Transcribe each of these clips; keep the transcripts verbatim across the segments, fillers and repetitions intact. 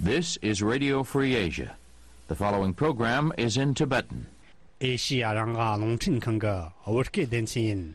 This is Radio Free Asia. The following program is in Tibetan. ཨེ་ཤི་ཡ་རང་དབང་རླུང་འཕྲིན་ཁང་གི་བོད་སྐད་སྡེ་ཚན་ཡིན།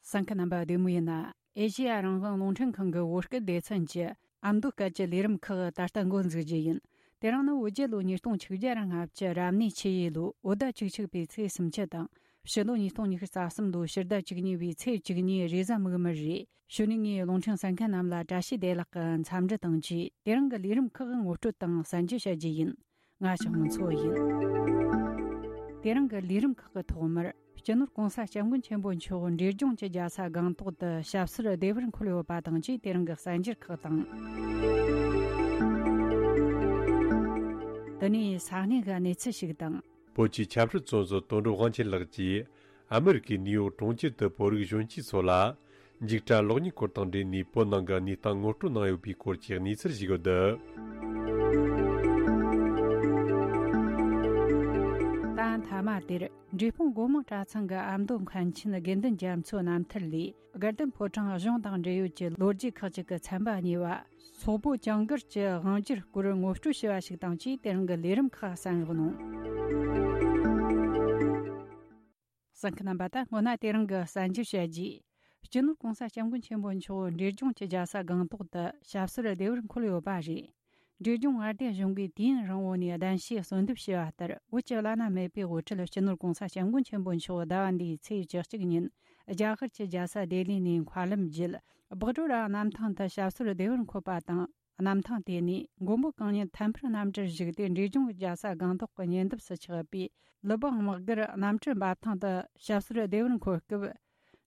གསན་མཁན་རྣམ་པ་བདེ་མོ་ཡིན་ན། ཨེ་ཤི་ཡ་རང་དབང་རླུང་འཕྲིན་ཁང་གི་བོད་སྐད་སྡེ་ཚན་གྱི་ཨ་མདོ་སྐད་ཀྱི་ལས་རིམ་ཁག་ད་ལྟ་འགོ་འཛུགས་རྒྱུ་ཡིན། དེ་རིང་ནི་བོད་རྒྱལ་ལོ་ཉིས་སྟོང་ཆིག་བརྒྱ་ར་ལྔ་བཅུ་རབ་གནས་ཆུ་ཡོས་ལོའི་བོད་ཟླ་བཅུ་གཅིག་པའི་ཚེས་སུམ་ཅུ་དང་། ཕྱི་ལོ་ཉིས་སྟོང་ཉི་ཤུ་རྩ་གསུམ་ལོའི་ཕྱི་ཟླ་བཅུ་གཉིས་པའི་ཚེས་བཅུ་གཉིས་རེས་གཟའ་མིག་དམར་རེད། གཞུག་ནས་ངས་རླུང་འཕྲིན་གསན་མཁན་རྣམས་ལ་བཀྲ་ཤིས་བདེ་ལེགས་ཀྱི་འཚམས་འདྲི་དང་བཅས། དེ་རིང་གི་ལས་རིམ་ཁག་ངོ་སྤྲོད་དང་གསན་རྒྱུ་བྱ་རྒྱུ་ཡིན། ང་ཞའོ་མུ་མཚོ་ཡིན། དེ་རིང་གི་ལས་རིམ་ཁག་གི་ཐོག་མར། སྤྱི་ནོར་༸གོང་ས་༸སྐྱབས་མགོན་ཆེན་པོ་མཆོག་འབྲས་ལྗོངས་ཀྱི་རྒྱལ་ས་སྒང་ཏོག་ཏུ་ཞབས་སོར་བདེ་བར་འཁོད་ཡོད་པ་དང་བཅས། དེ་རིང་གི་གསར་འགྱུར་ཁག་དང་། དེ་ནས་ས་གནས་ཀྱི་གནས་ཚུལ་ཞིག་དང་། བོད་ཀྱི་ཆབ་སྲིད་བཙོན་ཟུར་དོན་གྲུབ་དབང་ཆེན་ལགས་ཀྱིས་ཨ་མི་རི་ཀའི་ནིའུ་ཡོག་གྲོང་ཁྱེར་དུ་བོད་རིགས་གཞོན་སྐྱེས་ཚོ་ལ་འཇིགས་སྐྲག་གློག་བརྙན་སྐོར་དང་འབྲེལ་ནས་བོད་ནང་གི་གནས་སྟངས་ངོ་སྤྲོད་གནང་ཡོད་པའི་སྐོར་གྱི་གནས་ཚུལ་ཞིག་ཡོད། ད་མཐའ་མ་དེར། འབྲས་སྤུངས་སྒོ་མང་གྲྭ་ཚང་གི་ཨ་མདོ་མཁན་ཆེན་དགེ་འདུན་རྒྱ་མཚོའི་རྣམ་ཐར་ལས། དགའ་ལྡན་ཕོ་བྲང་གཞུང་དང་འབྲེལ་ཡོད་ཀྱི་ལོ་རྒྱུས་ཁག་ཅིག་གི་ཚན་པ་གཉིས་པ། སོག་པོ་ཅང་གིར་གྱི་དབང་སྒྱུར་སྐོར་ངོ་སྤྲོད་བྱས་པ་ཞིག་དང་བཅས། དེ་རིང་གི་ལས་རིམ་ཁག་གསན་རོགས་གནང་། གསན་མཁན་རྣམ་པ། ད་སྔོན་ན་དེ་རིང་གི་གསར་འགྱུར་བཤད་རྗེས། སྤྱི་ནོར་༸གོང་ས་༸སྐྱབས་མགོན་ཆེན་པོ་མཆོག་འབྲས་ལྗོངས་ཀྱི་རྒྱལ་ས་སྒང་ཏོག་ཏུ་ཞབས་སོར་བདེ་བར་འཁོད་ཡོད་པ་རེད། འབྲས་ལྗོངས་མངའ་སྡེ་གཞུང་གིས་དུས་ཡུན་རིང་བོ་ནས་གདན་ཞུས་གསོལ་འདེབས་བྱས་པ་ལྟར། བོད་ཀྱི་བླ་ན་མེད་པའི་དབུ་ཁྲིད་སྤྱི་ནོར་༸གོང་ས་༸སྐྱབས་མགོན་ཆེན་པོ་མཆོག་ཟླ་བ་འདིའི་ཚེས་བཅུ་གཅིག་ཉིན་རྒྱ་གར་གྱི་རྒྱལ་ས་ལྡི་ལི་ནས་མཁའ་ལམ་བརྒྱུད། སྦག་ཌོ་ར་གནམ་ཐང་དུ་ཞབས་སོར་བདེ་བར་འཁོད་པ་དང་། གནམ་ཐང་དེ་ནས་མགོན་པོ་གང་ཉིད་ཐད་འཕུར་གནམ་གྲུར་བཞུགས་ཏེ། འབྲས་ལྗོངས་རྒྱལ་ས་སྒང་ཏོག་གི་ཉེ་འདབས་སུ་ཆགས་པའི་ལི་སྦང་དམག་སྒར་གནམ་གྲུ་འབབ་ཐང་དུ་ཞབས་སོར་བདེ་བར་འཁོད་སྐབས།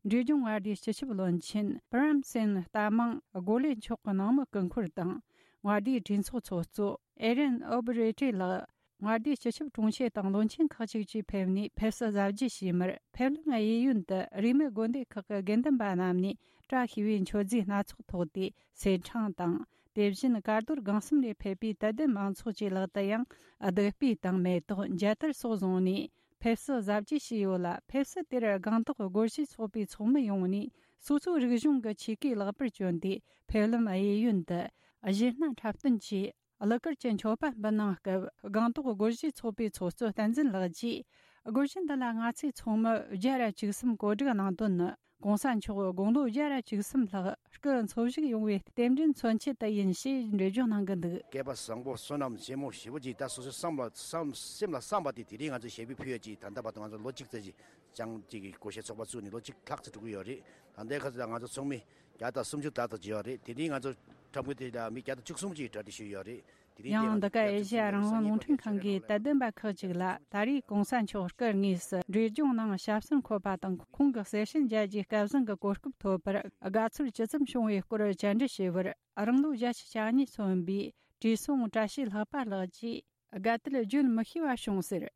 འབྲས་ལྗོངས་མངའ་སྡེའི་སྤྱི་ཁྱབ་བློན་ཆེན་པྲམ་སེན་རྟ་མང་གོ་ལེ་མཆོག་གི་ནང་མི་སྐུ་འཁོར་དང་། མངའ་སྡེའི་གྲོས་ཚོགས་ཚོགས་གཙོ་ཨེ་རན་ཨོ་བྷི་རེ་ཏི་ལགས། མངའ་སྡེའི་སྤྱི་ཁྱབ་དྲུང་ཆེ་དང་བློན་ཆེན་ཁག་ཅིག་བཅས་ཕེབས་ནས་ཕེབས་བསུ་གཟབ་རྒྱས་བྱས་མར། ཕེབས་ལམ་གཡས་གཡོན་དུ་རིས་མེད་དགོན་སྡེ་ཁག་གི་དགེ་འདུན་པ་རྣམས་ནས་བཀྲ་ཤིས་པའི་མཆོད་རྫས་སྣ་ཚོགས་ཐོགས་ཏེ་ཟས་འཕྲེང་དང་། དེ་བཞིན་གར་རྡོར་སྒང་གསུམ་ནས་ཕེབས་པའི་དད་ལྡན་མང་ཚོགས་ཀྱི་ལག་ཏུ་ཡང་བདུག་སྤོས་དང་མེ་ཏོག་མཇལ་དར་སོགས་བཟུང་ནས་ཕེབས་བསུ་གཟབ་རྒྱས་བྱས་ཡོད་ལ། ཕེབས་བསུ་དེར་སྒང་ཏོག་སྒོར་གཞས་ཚོགས་པའི་ཚོགས་མི་ཡོངས་ནས་སོ་སོའི་རིག་གཞུང་གི་ཆས་གོས་ལེགས་པར་གྱོན་ཏེ། ཕེབས་ལམ་གཡས་གཡོན་དུ་གཞས་སྣ་འཁྲབ་སྟོན་གྱིས་གླུ་གར་གྱི་མཆོད་པ་འབུལ་གནང་སྐབས། སྒང་ཏོག་སྒོར་གཞས་ཚོགས་པའི་ཚོགས་གཙོ་བསྟན་འཛིན་ལགས་ཀྱིས། སྒོར་གཞས་འདི་ལ་ང་ཚོའི་ཚོགས་མི་བརྒྱ་ར་བཅུ་གསུམ་གོ་སྒྲིག་གནང་དོན་ནི། ༸གོང་ས་མཆོག་དགུང་ལོ་བརྒྱ་ར་བཅུ་གསུམ་ལྷག་སྐུ་འཚོ་བཞུགས་ཡོང་བའི་རྟེན་འབྲེལ་མཚོན་ཆེད་དུ་ཡིན་ཞེས་འགྲེལ་བརྗོད་གནང་གི་འདུག། སྐལ་པ་བཟང་པོ་བསོད་ནམས་ཆེན་མོ་ཞེ་པོ་ཅིག་ད་སོ་སོའི་བསམ་ལ་བསམ་སེམས་ལ་བསམ་པ་དེ་དེ་རིང་ང་ཚོས་ཞལ་འབུལ་ཕུལ་ཡོད་ཅིག། ད་ལྟ་བར་དུ་ང་ཚོ་ལོ་གཅིག་ཙམ་ཞིག་ཅང་ཅིག་གི་སྒོར་གཞས་ཚོགས་པ་བཙུགས་ནས་ལོ་གཅིག་ལྷག་ཙམ་འགྲོ་གི་ཡོད་རེད། ད་ལྟའི་ཁ་ཚོད་ལ་ང་ཚོ་ཚོགས་མི་བརྒྱ་དང་སུམ་ཅུ་ལྷག་ཙམ་ཅིག་ཡོད་རེད། དེ་རིང་ང་ཚོ་འཁྲབ་མཁན་དེ་ལ་མི་བརྒྱ་དང་བཅུ་གསུམ་ཅིག་གྲ་སྒྲིག་ཞུས་ཡོད་རེད། དེ་རིང་ཡང་འདི་ག་ཨེ་ཤེ་ཡ་རང་དབང་རླུང་འཕྲིན་ཁང་གིས་དད་ལྡན་པ་ཁག་ཅིག་ལ། ད་རེས་གོང་ས་མཆོག་སྐུ་དངོས་སུ་འབྲས་ལྗོངས་ནང་ཞབས་སོར་འཁོད་པ་དང་། ཁོང་གི་གསེར་ཞུན་མཇལ་རྒྱུའི་སྐལ་བཟང་གི་གོ་སྐབས་ཐོབ་པར་དགའ་ཚོར་ཇི་ཙམ་བྱུང་བའི་སྐོར་བཅར་འདྲི་ཞུས་པར། རང་ལོ་བརྒྱད་ཅུ་གྱ་གཉིས་སོན་པའི་བཀྲས་སྲོང་བཀྲ་ཤིས་ལྷག་པ་ལགས་ཀྱིས་དགའ་དད་བརྗོད་མི་ཤེས་པ་བྱུང་ཟེར།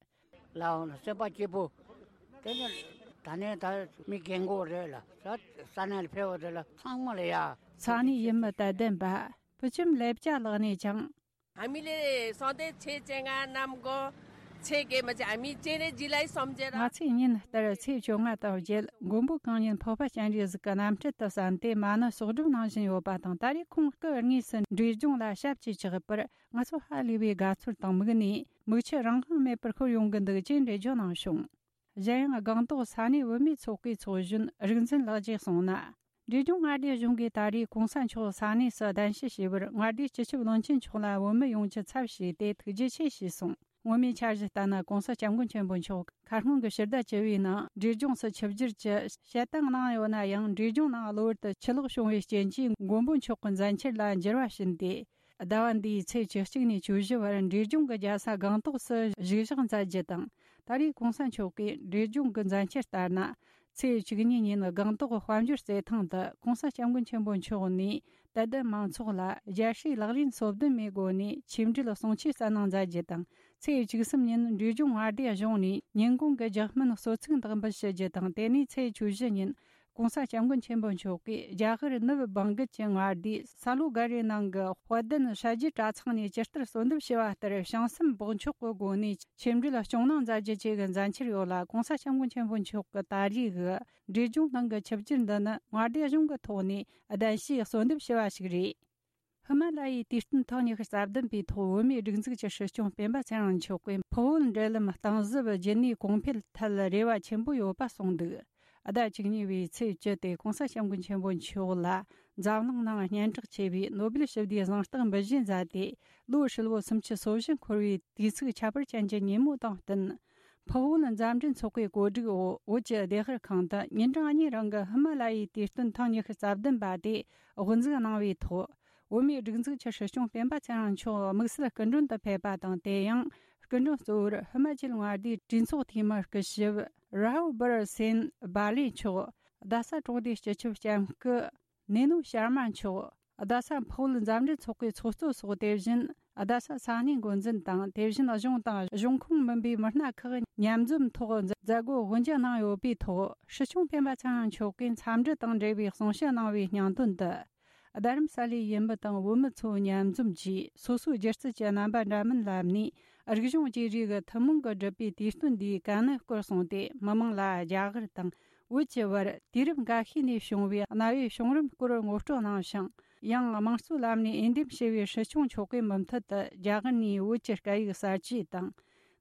ལའོ་ལ་སེམས་པ་སྐྱིད་པོ། དེ་ནི་ད་ནས་ད་མི་རྒན་གོག་རེད་ལ། ས་ས་གནས་ལ་ཕེབས་པ་དེ་ལ་ཚང་མ་ལ་ཡ། ས་གནས་ཡུལ་མི་དད་ལྡན་པ་ཕུ་ཆུམ་ལེབ་ཅ་ལགས་ནས་ཀྱང་། ཨ་མི་ལེ་སང་ཏེ་ཆེ་ཆེ་ང་ནམ་གོ་ཆེ་གེ་མ་ཆེ་ཨ་མི་ཅེ་རེ་ཇི་ལའི་སོམ་ཅེ་ར། ང་ཚོས་ཉིན་ལྟར་ཚེས་བཅོ་ལྔ་དང་བརྒྱད་མགོན་པོ་གང་ཉིད་འཕགས་པ་སྤྱན་རས་གཟིགས་ཀྱི་རྣམ་སྤྲུལ་དུ་བསམ་སྟེ་མ་ཎི་གསོག་སྒྲུབ་གནང་བཞིན་ཡོད་པ་དང་། ད་རེས་ཁོང་སྐུ་དངོས་སུ་འབྲས་ལྗོངས་ལ་ཞབས་ཀྱིས་བཅགས་པར་ང་ཚོ་ཧ་ལས་པའི་དགའ་ཚོར་དང་མིག་ནས་མིག་ཆུ་རང་དབང་མེད་པར་ཤོར་ཡོང་གི་འདུག་ཅེས་འགྲེལ་བརྗོད་གནང་བྱུང་། གཞན་ཡང་སྒང་ཏོག་ས་གནས་བུད་མེད་ཚོགས་པའི་ཚོགས་གཞོན་རིག་འཛིན་ལགས་ཀྱིས་གསུངས་ན། འབྲས་ལྗོངས་མངའ་སྡེ་གཞུང་གིས་ད་རེས་གོང་ས་མཆོག་ས་གནས་སུ་གདན་ཞུ་བྱས་པར་མངའ་སྡེའི་སྤྱི་ཁྱབ་བློན་ཆེན་མཆོག་ལ་བོད་མི་ཡོངས་ཀྱི་ཚབ་བྱས་ཏེ་ཐུགས་རྗེ་ཆེ་ཞུས་སོང་། སྔོན་མའི་འཆར་གཞི་ལྟར་ན། གོང་ས་སྐྱབས་མགོན་ཆེན་པོ་མཆོག་ཁ་སྔོན་གྱི་ཕྱི་ཟླ་བཅུ་པའི་ནང་འབྲས་ལྗོངས་སུ་ཆིབས་བསྒྱུར་གྱི་བྱེད་སྟངས་གནང་ཡོད་ན་ཡང་། འབྲས་ལྗོངས་ནང་གློ་བུར་དུ་ཆུ་ལོག་བྱུང་བའི་རྐྱེན་གྱིས་མགོན་པོ་མཆོག་གི་མཛད་འཆར་ལ་འགྱུར་བ་ཕྱིན་ཏེ། ཟླ་བ་འདིའི་ཚེས་བཅུ་གཅིག་ནས་བཅུ་བཞི་བར་འབྲས་ལྗོངས་ཀྱི་རྒྱལ་ས་སྒང་ཏོག་སུ་བཞུགས་ཞག་མཛད་རྒྱུ་དང་། ད་རེས་གོང་ས་མཆོག་གིས་འབྲས་ལྗོངས་ཀྱི་མཛད་འཆར་ལྟར་ན། ཚེས་བཅུ་གཉིས་ཉིན་སྒང་ཏོག་དཔལ་འབྱོར་རྩེད་ཐང་དུ་གོང་ས་སྐྱབས་མགོན་ཆེན་པོ་མཆོག་ནས་དད་ལྡན་མང་ཚོགས་ལ་རྒྱལ་སྲས་ལག་ལེན་སོ་བདུན་མའི་སྒོ་ནས་ཆིག་འབྲེལ་གསུང་ཆོས་སྩལ་གནང་མཛད་རྒྱུ་དང་། ཚེས་བཅུ་གསུམ་ཉིན་འབྲས་ལྗོངས་མངའ་སྡེ་གཞུང་ནས་ཉིན་གུང་གི་རྒྱགས་སྨན་གསོལ་ཚིགས་བདག་འབུལ་ཞུ་རྒྱུ་དང་། དེ་ནས་ཚེས་བཅུ་བཞི་ཉིན་ ༸གོང་ས་༸སྐྱབས་མགོན་ཆེན་པོ་མཆོག་གིས་རྒྱ་གར་ནུབ་བང་གལ་གྱི་མངའ་སྡེ་ས་ལོ་ག་རེ་ནང་གི་དཔལ་ལྡན་ཧྲ་རྒྱུད་གྲྭ་ཚང་ནས་ཇི་ལྟར་གསོལ་འདེབས་ཞུ་བ་ལྟར་བྱང་སེམས་སྦགས་འཁྱོག་གི་སྒོ་ནས་ཆོས་འབྲེལ་སྐྱོང་གནང་མཛད་རྒྱུ་བཅས་ཀྱི་མཛད་འཆར་ཡོད་ལ། ༸གོང་ས་༸སྐྱབས་མགོན་ཆེན་པོ་མཆོག་གི་ད་རེས་ཀྱི་འབྲས་ལྗོངས་ནང་གི་ཆིབས་བསྒྱུར་འདི་ནི་མངའ་སྡེ་གཞུང་གི་ཐོག་ནས་གདན་ཞུས་གསོལ་འདེབས་ཞུ་བ་ཞིག་རེད། ཧི་མ་ལ་ཡའི་དུས་སྟོན་ཐེངས་ཉི་ཤུ་རྩ་བདུན་པའི་ཐོག་བོད་མིའི་སྒྲིག་འཛུགས་ཀྱི་སྲིད་སྐྱོང་སྤེན་པ་ཚེ་རིང་མཆོག་གིས་འཕགས་བོད་འབྲེལ་ལམ་གཏིང་ཟབ་རྒྱུན་གནས་གོང་འཕེལ་ཐད་རེ་བ་ཆེན་པོ་ཡོད་པ་གསུངས་འདུག་ཟླ་བཅུ་གཉིས་པའི་ཚེས་བཅུ་སྟེ་༸གོང་ས་༸སྐྱབས་མགོན་ཆེན་པོ་མཆོག་ལ་འཛམ་གླིང་ནང་སྙན་གྲགས་ཆེ་བའི་ནོ་སྦེལ་ཞི་བདེའི་གཟེངས་རྟགས་འབུལ་བཞེས་མཛད་དེ། ལོ་ཧྲིལ་བོ་སུམ་ཅུ་སོ་བཞི་འཁོར་བའི་དུས་ཚིགས་ཁྱད་པར་ཅན་གྱི་ཉིན་མོ་དང་བསྟུན། འཕགས་བོད་མཛའ་འབྲེལ་ཚོགས་པའི་གོ་སྒྲིག་འོག་བོད་ཀྱི་ལྡེ་ཤར་ཁང་དུ་ཉིན་གྲངས་གཉིས་རིང་གི་ཧི་མ་ལ་ཡའི་དུས་སྟོན་ཐེངས་ཉི་ཤུ་རྩ་བདུན་པ་དེ་དབུ་འཛུགས་གནང་བའི་ཐོག་བོད་མིའི་སྒྲིག་འཛུགས་ཀྱི་སྲིད་སྐྱོང་སྤེན་པ་ཚེ་རིང་མཆོག་དམིགས་བསལ་སྐུ་མགྲོན་དུ་ཕེབས་པ་དང་། དེ་ཡང་སྐུ་མགྲོན་གཙོ་བོར་ཧི་མ་ཅལ་མངའ་སྡེའི་གྲོས་ཚོགས་འཐུས་མི་སྐུ་ཞབས་རཱ་བྷར་སེན་བྷ་ལེ་མཆོག་རྡ་ས་གྲོང་སྡེའི་སྤྱི་ཁྱབ་ལྕམ་སྐུ་ནེ་ནོ་ཤར་མ་མཆོག་རྡ་ས་འཕགས་བོད་མཛའ་འབྲེལ་ཚོགས་པའི་ཚོགས་གཙོ་སོགས། དེ་བཞིན་རྡ་ས་ས་གནས་འགོ་འཛིན་དང་། དེ་བཞིན་གཞུང་དང་གཞུང་ཁོངས་མིན་པའི་མི་སྣ་ཁག་མཉམ་འཛོམས་ཐོག་མཛད་སྒོ་དབུ་འབྱེད་གནང་ཡོད་པའི་ཐོག་སྲིད་སྐྱོང་སྤེན་པ་ཚེ་རིང་མཆོག་གིས་འཚམས་འདྲི་དང་འབྲེལ་བའི་གསུང་བཤད་གནང་བའི་སྙིང་དོན་དུ། རྡ་རམ་ས་ལའི་ཡུལ་མི་དང་བོད་མི་ཚོ་མཉམ་འཛོམས་ཀྱིས་སོ་སོའི་སྒྱུ་རྩལ་གྱི་རྣམ་པ་འདྲ་མིན་ལམ་ནས་རིག་གཞུང་བརྗེ་རེས་ཀྱི་ཐུན་མོང་གི་སྒྲུབ་པའི་དུས་སྟོན་འདིའི་དཀའ་གནད་སྐོར་གསུངས་ཏེ། མི་མང་ལ་རྒྱ་གར་དང་བོད་ཀྱི་བར་དུས་རབས་འགའ་ཤས་ནས་བྱུང་བའི་གནའ་བོའི་བྱུང་རིམ་སྐོར་ངོ་སྤྲོད་གནང་ཞིང་། ཡང་དམངས་གཙོའི་ལམ་ནས་འོས་འདེམས་བྱས་པའི་སྲིད་སྐྱོང་མཆོག་གིས་མུ་མཐུད་དུ་རྒྱ་གར་ནས་བོད་ཀྱི་སྐད་ཡིག་གསར་བརྗེ་དང་།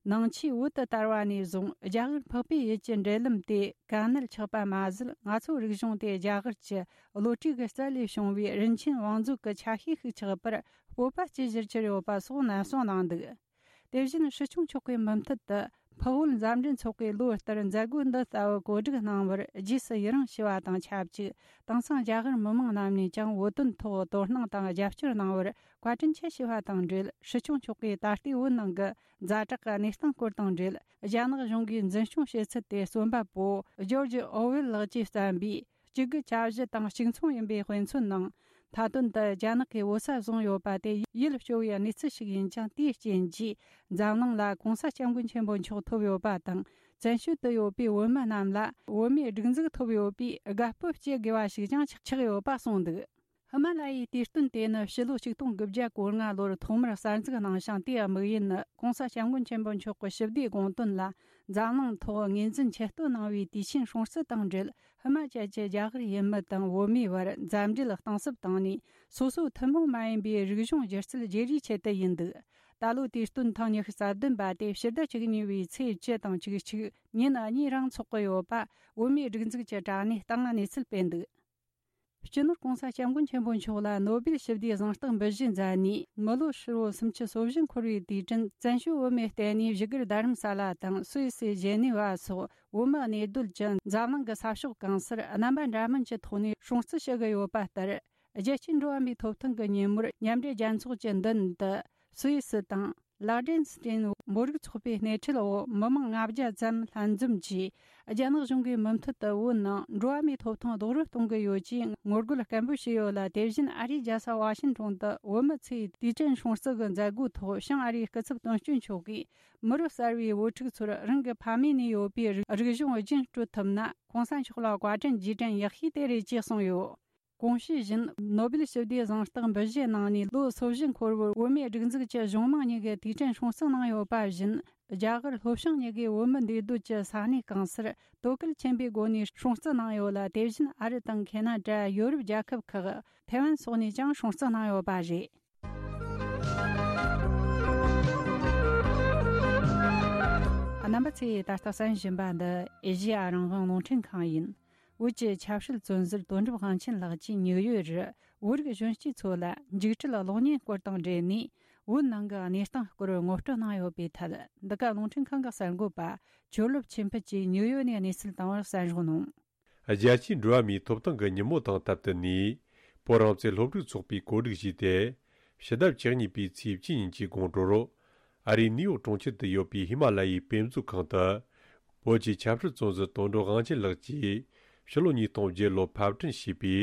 ནང་ཆོས་བོད་དུ་དར་བ་ནས་བཟུང་རྒྱ་གར་འཕགས་པའི་ཡུལ་གྱི་འབྲེལ་ལམ་དེ་དཀའ་གནད་ཆགས་པ་མ་ཟད། ང་ཚོའི་རིག་གཞུང་དེ་རྒྱ་གར་གྱི་བློ་གྲོས་ཀྱི་རྩལ་ལས་བྱུང་བའི་རིན་ཆེན་བང་མཛོད་ཀྱི་ཆ་ཤས་ཤིག་ཆགས་པར་སྤོབས་པ་སྐྱེ་གཞིར་གྱུར་ཡོད་པ་སོགས་ནན་གསུངས་གནང་འདུག་དེ་བཞིན་སྲིད་སྐྱོང་མཆོག་གིས་མུ་མཐུད་དུ་འཕགས་བོད་མཛའ་འབྲེལ་ཚོགས་པས་ལོ་ལྟར་མཛད་སྒོ་འདི་ལྟ་བུ་གོ་སྒྲིག་གནང་བར་རྗེས་སུ་ཡི་རང་ཞུ་བ་དང་ཆབས་ཅིག་དེང་སང་རྒྱ་གར་མི་མང་རྣམས་ནས་ཀྱང་བོད་དོན་ཐོག་དོ་སྣང་དང་རྒྱབ་སྐྱོར་གནང་བར་བཀའ་དྲིན་ཆེ་ཞུ་བ་དང་འབྲེལ། སྲིད་སྐྱོང་མཆོག་གིས་ད་ལྟའི་བོད་ནང་གི་ཛ་དྲག་གི་གནས་སྟངས་སྐོར་དང་འབྲེལ། རྒྱ་ནག་གཞུང་གིས་འཛིན་སྐྱོང་བྱེད་ཚུལ་དེ་རྩོམ་པ་པོ་ཇོར་ཇི་ཨོ་ཝེལ་ལགས་ཀྱིས་བརྩམས་པའི་གཅིག་དགུ་གྱ་བཞི་དང་གཅིག་མཚུངས་ཡིན་པའི་དཔེ་མཚོན་ནང་། མཐའ་དོན་དུ་རྒྱ་ནག་གིས་བོད་ས་བཟུང་ཡོད་པ་དེ་ཡིད་སྐྱོ་བའི་གནས་ཚུལ་ཞིག་ཡིན་ཀྱང་། དེའི་རྐྱེན་གྱིས་འཛམ་གླིང་ལ་༸གོང་ས་༸སྐྱབས་མགོན་ཆེན་པོ་མཆོག་ཐོབ་ཡོད་པ་དང་། བཙན་བྱོལ་དུ་ཡོད་པའི་བོད་མི་རྣམས་ལ་བོད་མིའི་སྒྲིག་འཛུགས་ཐོབ་ཡོད་པས་དགའ་སྤོབས་སྐྱེ་དགོས་པ་ཞིག་ཀྱང་ཆགས་ཆགས་ཡོད་པ་གསུངས་འདུག་ཧི་མ་ལ་ཡའི་དུས་སྟོན་དེ་ནི་ཕྱི་ལོ་ཆིག་སྟོང་དགུ་བརྒྱ་གོ་ལྔ་ལོར་ཐོག་མར་གསར་འཛུགས་གནང་ཞིང་། དེའི་དམིགས་ཡུལ་ནི་༸གོང་ས་༸སྐྱབས་མགོན་ཆེན་པོ་མཆོག་གི་ཞི་བདེའི་དགོངས་དོན་ལ་འཛམ་གླིང་ཐོག་ངོས་འཛིན་ཆེ་བསྟོད་གནང་བའི་དུས་ཆེན་སྲུང་བརྩི་དང་འབྲེལ། ཧི་མ་ཅལ་གྱི་རྒྱ་གར་ཡུལ་མི་དང་བོད་མིའི་བར་མཛའ་འབྲེལ་གཏིང་ཟབ་བཏང་ནས། སོ་སོའི་ཐུན་མོང་མ་ཡིན་པའི་རིག་གཞུང་སྒྱུ་རྩལ་བརྗེ་རེས་ཆེད་དུ་ཡིན་འདུག་ད་ལོའི་དུས་སྟོན་ཐེངས་ཉི་ཤུ་རྩ་བདུན་པ་དེ་ཕྱི་ཟླ་བཅུ་གཉིས་པའི་ཚེས་བཅུ་དང་བཅུ་གཅིག་ཉིན་གཉིས་རིང་འཚོགས་ཀྱི་ཡོད་པ་བོད་མིའི་སྒྲིག་འཛུགས་ཀྱི་དྲ་གནས་སྟེང་གནས་ཚུལ་སྤེལ་འདུག་སྤྱི་ནོར་༸གོང་ས་༸སྐྱབས་མགོན་ཆེན་པོ་མཆོག་ལ་ནོ་སྦེལ་ཞི་བདེའི་གཟེངས་རྟགས་འབུལ་བཞེས་མཛད་ནས། མི་ལོ་ཧྲིལ་བོ་སུམ་ཅུ་སོ་བཞི་འཁོར་བའི་དུས་དྲན་བཙན་བྱོལ་བོད་མིའི་ལྟེ་གནས་བཞུགས་སྒར་རྡ་རམ་ས་ལ་དང་སུད་སི་ཇེ་ནེ་ཝ་སོགས་བོད་མི་གནས་སྡོད་ཀྱི་འཛམ་གླིང་གི་ས་ཕྱོགས་གང་སར་རྣམ་པ་འདྲ་མིན་གྱི་ཐོག་ནས་སྲུང་བརྩི་ཞུ་གི་ཡོད་པ་ལྟར། རྒྱལ་སྤྱིའི་འགྲོ་བ་མིའི་ཐོབ་ཐང་གི་ཉིན་མོར་མཉམ་འབྲེལ་རྒྱལ་ཚོགས་ཀྱི་མདུན་དུ་སུད་སི་དང་། ལག་ཌེན་སི་ཏྲིན་བོད་རིགས་ཚོགས་པའི་སྣེ་ཁྲིད་འོག་མི་མང་ལྔ་བརྒྱ་ཙམ་ལྷན་འཛོམས་ཀྱིས། རྒྱ་ནག་གཞུང་གིས་མུ་མཐུད་དུ་བོད་ནང་འགྲོ་བ་མིའི་ཐོབ་ཐང་རྡོག་རོལ་གཏོང་གི་ཡོད་ཅེས་ངོ་རྒོལ་སྐད་འབོད་བྱས་ཡོད་ལ། དེ་བཞིན་ཨ་རིའི་རྒྱལ་ས་ཝ་ཤིང་ཊོན་དུ་བོད་མི་ཚོའི་དུས་དྲན་སྲུང་བརྩི་གི་མཛད་སྒོའི་ཐོག་བྱང་ཨ་རིའི་སྐུ་ཚབ་དོན་གཅོད་མཆོག་གིས། མི་རབས་གསར་བའི་བུ་ཕྲུག་ཚོར་རང་གི་ཕ་མེས་ནས་ཡོད་པའི་རིག་གཞུང་རྒྱུན་སྤྲོད་ཐུབ་ན། ྋགོང་ས་མཆོག་ལ་བཀའ་དྲིན་རྗེས་དྲན་ཡག་ཤོས་དེ་རེད་ཅེས་གསུངས་ཡོད། གོང་ཞུས་བཞིན། ནོ་སྦེལ་ཞི་བདེའི་གཟེངས་རྟགས་འབུལ་བཞེས་གནང་ནས་ལོ་སོ་བཞི་འཁོར་བར། བོད་མིའི་སྒྲིག་འཛུགས་ཀྱི་གཞུང་མང་གཉིས་ཀྱི་དུས་དྲན་སྲུང་བརྩི་གནང་ཡོད་པ་བཞིན། རྒྱ་གར་ལྷོ་བྱང་གཉིས་ཀའི་བོད་མི་འདུས་སྡོད་ཀྱི་ས་གནས་གང་སར་དོ་གལ་ཆེན་པོའི་སྒོ་ནས་སྲུང་བརྩི་གནང་ཡོད་ལ། དེ་བཞིན་ཨ་རི་དང་ཁེ་ན་ཌ། ཡོ་རོབ་རྒྱལ་ཁབ་ཁག་ཐའེ་ཝན་སོགས་ནས་ཀྱང་སྲུང་བརྩི་གནང་ཡོད་པ་རེད། རྣམ་པ་ཚོས་ད་ལྟ་གསན་བཞིན་པ་འདི་ཨེ་ཤེ་ཡ་རང་དབང་རླུང་འཕྲིན་ཁང་ཡིན། བོད་ཀྱི་ཆབ་སྲིད་བཙོན་ཟུར་དོན་གྲུབ་དབང་ཆེན་ལགས་ཀྱིས་ཉིའུ་ཡོག་རུ་བོད་རིགས་གཞོན་སྐྱེས་ཚོ་ལ་འཇིགས་བྲལ་གློག་བརྙན་སྐོར་དང་འབྲེལ་ནས། བོད་ནང་གི་གནས་སྟངས་སྐོར་ངོ་སྤྲོད་གནང་ཡོད་པའི་ཐད། འདི་ག་རླུང་འཕྲིན་ཁང་གི་གསར་འགོད་པ་ཆོས་རླབས་ཆོས་འཕེལ་གྱིས་ཉིའུ་ཡོག་ནས་གནས་ཚུལ་བཏང་བར་གསན་རོགས་གནང་། རྒྱལ་སྤྱིའི་འགྲོ་བ་མིའི་ཐོབ་ཐང་གི་ཉིན་མོ་དང་སྟབས་བསྟུན་ནས། བོད་རང་བཙན་སློབ་ཕྲུག་ཚོགས་པས་གོ་སྒྲིག་བྱས་ཏེ། ཕྱི་ཟླ་བཅུ་གཉིས་པའི་ཚེས་བཅུ་ཉིན་གྱི་དགོང་དྲོར། ཨ་རིའི་ནིའུ་ཡོག་གྲོང་ཁྱེར་དུ་ཡོད་པའི་ཧི་མ་ལ་ཡའི་དཔེ་མཛོད་ཁང་དུ། བོད་ཀྱི་ཆབ་སྲིད་བཙོན་ཟུར་དོན་གྲུབ་དབང་ཆེན་ལགས་ཀྱིས། ཕྱི་ལོ་ཉིས་སྟོང་བརྒྱད་ལོར་ཕབ་སྐྲུན་བྱས་པའི་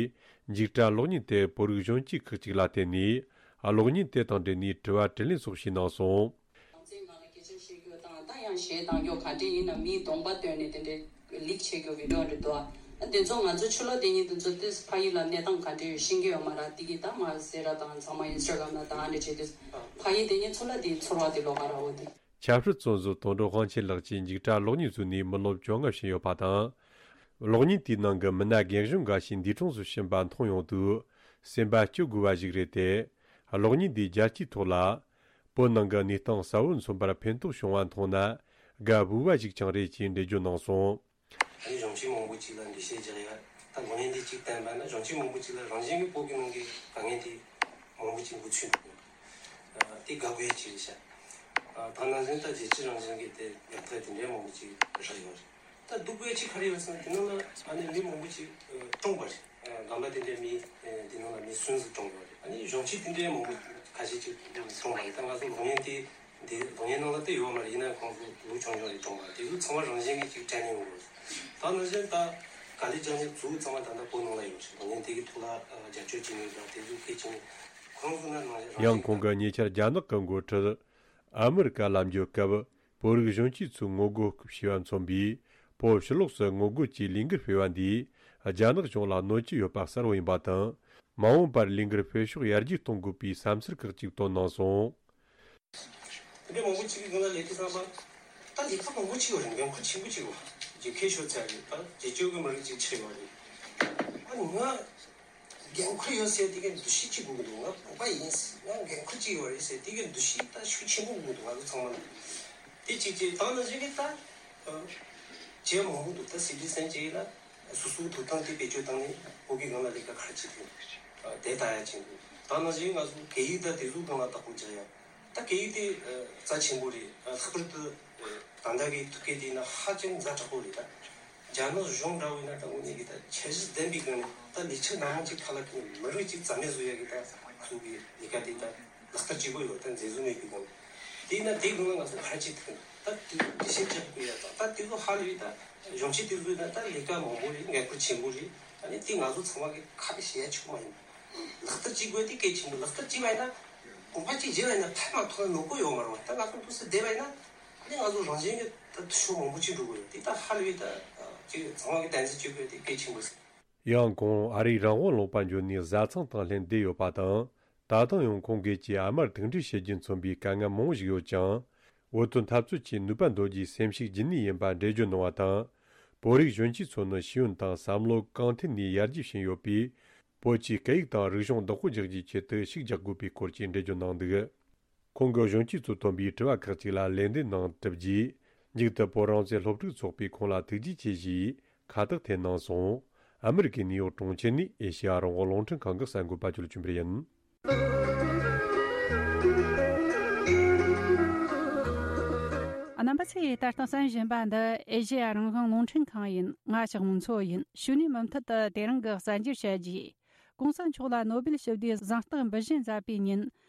འཇིགས་སྐྲག་གློག་བརྙན་དེ། བོད་རིགས་གཞོན་སྐྱེས་ཁག་ཅིག་ལ་བསྟན་ནས། གློག་བརྙན་དེ་དང་འབྲེལ་ནས་དྲི་བ་དྲིས་ལན་སོགས་བྱས་གནང་སོང་། རང་བཙན་སྒང་ལ་སྐད་ཆ་བཤད་རྒྱུ་དང་། ད་ཡང་གཞས་གཏང་རྒྱུ་ག་འདྲ་ཡིན་ན། མིའི་གདོང་པ་སྟོན་ནས་དེ་འདྲའི་ལིག་བྱེད་རྒྱུ་བི་ཌིའོ་འདྲ་འདུག་ཨ། དེ་ཚོ་ང་ཚོ་ཆུ་ལོག་དེ་ཉིད་དེ་ཚོ་དེ་ཕ་ཡུལ་ལ་གནས་སྟངས་ག་འདྲ་ཡོད་ཤེས་ཀྱི་ཡོད་མ་རེད། དེ་གི་ད་མ་ཟེར་ར་དང་ཚང་མ་ཨིན་སི་ཊ་གྷ་རམ་ལ་དང་ཨ་འདྲ་བྱས་དུས་ཕ་ཡུལ་དེ་ཉིད་ཚོ་ལ་དེ་ཚོར་བ་དེ་ལོག་ག་ར་འོ་དེ། ཆབ་སྲིད་བཙོན་ཟུར་དོན་གྲུབ་དབང་ཆེན་ལགས་ཀྱིས་འཇིགས་སྐྲག་གློག་བརྙན་བཟོས་ནས་མི་ལོ་བཅོ་ལྔ་ཕྱིན་ཡོད་པ་དང་། གློག་བརྙན་དེའི་ནང་གི་མི་སྣ་རྒན་གཞོན་འགའ་ཞིག་འདས་གྲོངས་སུ་ཕྱིན་པ་མཐོང་ཡོང་དུས་སེམས་པ་སྐྱོ་དགོས་པ་ཞིག་རེད་དེ། གློག་བརྙན་འདིས་རྒྱལ་སྤྱིའི་ཐོག་ལ་བོད་ནང་གི་གནས་སྟངས་གསལ་བོ་མཚོན་པར་ཕན་ཐོགས་བྱུང་བ་མཐོང་ན་དགའ་འོས་པ་ཞིག་ཀྱང་རེད་ཅེས་འགྲེལ་བརྗོད་གནང་སོང་། ཨ་ནི་གཞོན་སྐྱེས་མང་པོ་ཅིག་ལ་འགྲེལ་བཤད་རྒྱག་ཡ། ད་གློག་བརྙན་འདི་གཅིག་བསྟན་པ་ན་གཞོན་སྐྱེས་མང་པོ་ཅིག་ལ་རང་བཞིན་གྱི་བོད་ཀྱི་ནང་གི་དཀའ་ངལ་དེ་མང་པོ་ཅིག་འགོ་ཚུགས་འདུག་ཨ་དེ་དགའ་དགོས་ཡ་ཅིག་རེད་ཤག་ཨ་ད་ནང་བཞིན་ད་རྒྱལ་སྤྱི་རང་བཞིན་གྱི་དེ་ཉམ་ཐག་དེ་འདྲའི་མང་པོ་ཅིག་རག་ཡོད་རེད། ད་སྡུག་དགོས་ཡ་ཅིག་ག་རེ་ཡོད་ཟེར་ན་དེ་ནང་ལ་ཨ་ནི་མི་མང་པོ་ཅིག་ཨ་གྲོངས་པ་རེད། ཨ་རྒན་པ་དེ་འདྲའི་མི་ཨ་དེ་ནང་ལ་མི་སུམ་ཅུ་གྲོངས་པ་རེད། ཨ་ནི་གཞོན་སྐྱེས་དེ་འདྲའི་མང་པོ་ཁ་ཤས་ཅིག་གྲོངས་པ་རེད། ད་ང་ཚོ་གློག་བརྙན་དེ། འདི་གློག་བརྙན་ནང་ལ་དེ་ཡོད་མ་རེད། ཡིན་ན་ཁོང་ཚོ་ལོ་ཆུང་ཆུང་རེད། གྲོངས་པ་དེ་ཚོ་ཚང་མ་རང་བཞིན་གྱིས་ཅིག་དྲན་ནས་ཡོང་གི་རེད། ད་ནང་བཞིན་ད་ག་ལེ་ཇ་ནི་ཚོ་ཚང་མ་ད་ལྟ་བོད་ནང་ལ་ཡོད་རེད། གློག་བརྙན་དེ་གི་ཐོག་ལ་ཨ་རྒྱབ་སྐྱོར་བྱེད་མཁན་དང་དེ་ཚོ་སྐད་ཆ་ནི་ཁོང་ཚོ་ན་ནང་བཞིན་རང་ཡང་བཞིན་ཁོང་གིས་ཉེ་ཆར་རྒྱ་ནག་གི་འགོ་ཁྲིད་ཨ་མི་རི་ཀ་ལ་འབྱོར་སྐབས་བོད་རིགས་གཞོན་སྐྱེས་ཚོས་ངོ་རྒོལ་བྱས་པ་མཚོན་པའི་བོད་ཕྱི་ལོགས་སུ་ངོ་རྒོལ་གྱི་ལས་འགུལ་སྤེལ་བ་འདིས་རྒྱ་ནག་གཞུང་ལ་གནོད་ཀྱི་ཡོད་པ་གསལ་བོ་ཡིན་པ་དང་། མ་འོངས་པར་ལས་འགུལ་སྤེལ་ཕྱོགས་ཡར་རྒྱས་གཏོང་དགོས་པའི་བསམ་ཚུལ་ཁག་ཅིག་བཏོན་གནང་སོང་། དེ་འདྲའི་མང་པོ་ཅིག་གི་སྒང་ལ་ལས་ཀ་བསམ་པ། ད་ལས་ཀ་མང་པོ་ཅིག་ཡོད་རེད། འགན་ཁུར་ཆེན་པོ་ཅིག་ཡོད། རྒྱལ་ཁའི་ཤོག་ཚད་རེད། ད་རྒྱལ་སྤྱོད་ཀྱི་མི་རིགས་ཅིག་ཆགས་ཡོད་རེད། ཨ་ནི་ང་འགན་ཁུར་ཡོད་ཟེར་དེ་གའི་འདུ་ཤེས་ཅིག་དགོས་ཀྱི་འདུག་ང་བོད་པ་ཡིན། ང་འགན་ཁུར་ཅིག་ཡོད་རེད་ཟེར་དེ་གའི་འདུ་ཤེས་ད་ཤུགས་ཆེན་པོ་དགོས་ཀྱི་འདུག་ང་ཚོ་ཚང་མ་ལ། དེ་གཅིག་གཅིག་དང་ནང་བཞིན་གྱི་ད་བྱེད་མང་པོ་འདུག་ད་སི་ཊི་ཟན་ཅིག་ལ་སོ་སོའི་ཐོབ་ཐང་དེ་བེད་སྤྱོད་བཏང་ནས་བོད་ཀྱི་སྒང་ལ་ལས་ཀ་ག་རེ་བྱེད་ཐུབ་དེ་ལྟ་ཡ་ཆེན་པོ། ད་ནང་བཞིན་ང་ཚོ་སྐད་ཡིག་དང་དེ་ཚོའི་སྒང་ལ་བདག་པོ་རྒྱག་ཡ། ད་སྐད་ཡིག་དེ་རྩ་ཆེན་པོ་རེད། ལྷག་པར་དུ་ད་ལྟ་གི་ཐུག་སྐད་དེ་ཡིན་ན་ཧ་ཅང་ཛ་དྲག་པོ་རེད་ད། རྒྱ་ནག་གཞུང་འདྲ་བོ་ཡིན་ན་ད་དངོས་གནས་ཀྱི་ད་འཆར་གཞི་ལྡན་པའི་སྒང་ནས་ད་ལས་འཆར་སྣ་མང་ཅིག་ཁ་ལ་ཁེལ་ནས་མི་རིགས་ཅིག་རྩ་མེད་བཟོ་ཡ་གི་ད་ང་ཚོ་གི་ལས་ཀ་དེ་ད་ལག་བསྟར་བྱེད་དགོས་ཡོད། ད་འཛིན་བཟུང་མེད་པའི་སྒང་དེ་ཡིན་ན་དེའི་སྒང་ལ་ང་ཚོ་ག་རེ་བྱེད་ཐུབ་ཀྱི་འདུག་ད་དེ་དེ་བཤད་རྒྱག་དགོས་ཡ་དང་ད་དེ་ཚོ་ཧ་ལས་ད་གཞོན་སྐྱེས་དེ་ཚོ་ཡིན་ན་ད་ལས་ཀ་མང་པོ་རེད། འགན་ཁུར་ཆེན་པོ་རེད། ད་ནི་དེ་ང་ཚོ་ཚང་མ་གི་ཁ་ལ་བཤད་ཡ་ཆོག་མ་ཡིན་པ། ལག་བསྟར་བྱེད་དགོས་དེ་གལ་ཆེན་པོ། ལག་བསྟར་བྱས་པ་ཡིན་ན་གོམ་པ་གཅིག་བརྗེས་པ་ཡིན་ན་ཕན་མ་ཐོགས་ན་ནོར་གི་ཡོད་མ་རེད་བ། ད་ང་ཚོ་འདུག་སེ་བསྡད་པ་ཡིན་ན་ཨ་ནི་ང་ཚོ་རང་བཞིན་གྱིས་ད་ཕྱོགས་མང་པོ་ཅིག་འགྲོ་གི་ཡོད། དེ་ད་ཧ་ལས་པའི་ད་ཅིག་ཚང་མ་གི་དམ་འཛིན་བྱེད་དགོས་དེ་གལ་ཆེན་པོ་རེད། ཡང་ཁོང་ཨ་རིའི་རང་དབང་ལུང་པར་འབྱོར་ནས་བཟའ་ཚང་དང་ལྷན་བསྡད་ཡོད་པ་དང་། ད་དུང་ཡང་ཁོང་སྒེར་གྱི་ཨ་མར་ཐུག་འཕྲད་བྱེད་རྒྱུ་མཚོན་པའི་དཀའ་ངལ་མང་པོ་ཞིག་ཡོད་ཀྱང་། འོས་བསྡུ་འཐབ་རྩོད་ཀྱི་ནུས་པ་འདོན་རྒྱུའི་སེམས་ཤུགས་རྒྱུན་གནས་ཡིན་པ་འགྲེལ་བརྗོད་གནང་བ་དང་། བོད་རིགས་གཞོན་སྐྱེས་ཚོ་ནི་ཤེས་ཡོན་དང་བསམ་བློ་གང་ཐད་ནས་ཡར་རྒྱས་ཕྱིན་ཡོད་པས། བོད་ཀྱི་སྐད་ཡིག་དང་རིག་གཞུང་བདག་པོ་རྒྱག་རྒྱུའི་ཆེད་དུ་ཤུགས་རྒྱག་དགོས་པའི་སྐོར་གྱི་འགྲེལ་བརྗོད་གནང་འདུག་ཁོང་གིས་གཞོན་སྐྱེས་ཚོས་བཏོན་པའི་དྲི་བ་ཁག་ཅིག་ལ་ལན་འདེབས་གནང་གྲུབ་རྗེས། མཇུག་ཏུ་བོད་རང་བཙན་སློབ་ཕྲུག་ཚོགས་པས་ཁོང་ལ་ཐུགས་རྗེ་ཆེ་ཞེས་ཁ་བཏགས་འཐེན་གནང་སོང་། ཨ་མི་རི་ཀའི་ནིའུ་ཡོག་གྲོང་ཁྱེར་ནས་ཨེ་ཤེ་ཡ་རང་དབང་རླུང་འཕྲིན་ཁང་གི་གསར་འགོད་པ་ཇོ་ལགས་ཆོས་འཕེལ་ཡིན། རྣམ་པ་ཚོས་ལྟ་སྟངས་གསན་བཞིན་པ་འདི་ཨེ་ཤེ་ཡ་རང་དབང་རླུང་འཕྲིན་ཁང་ཡིན། ང་ཞག་མོ་མཚོ་ཡིན། ཞུ་ནས་མུ་མཐུད་དུ་དེ་རིང་གི་གསར་འགྱུར་བཤད་རྒྱུ། གོང་ས་མཆོག་ལ་ནོ་སྦེལ་ཞི་བདེའི་གཟེངས་རྟགས་འབུལ་བཞིན་མཛད་པའི་ཉིན།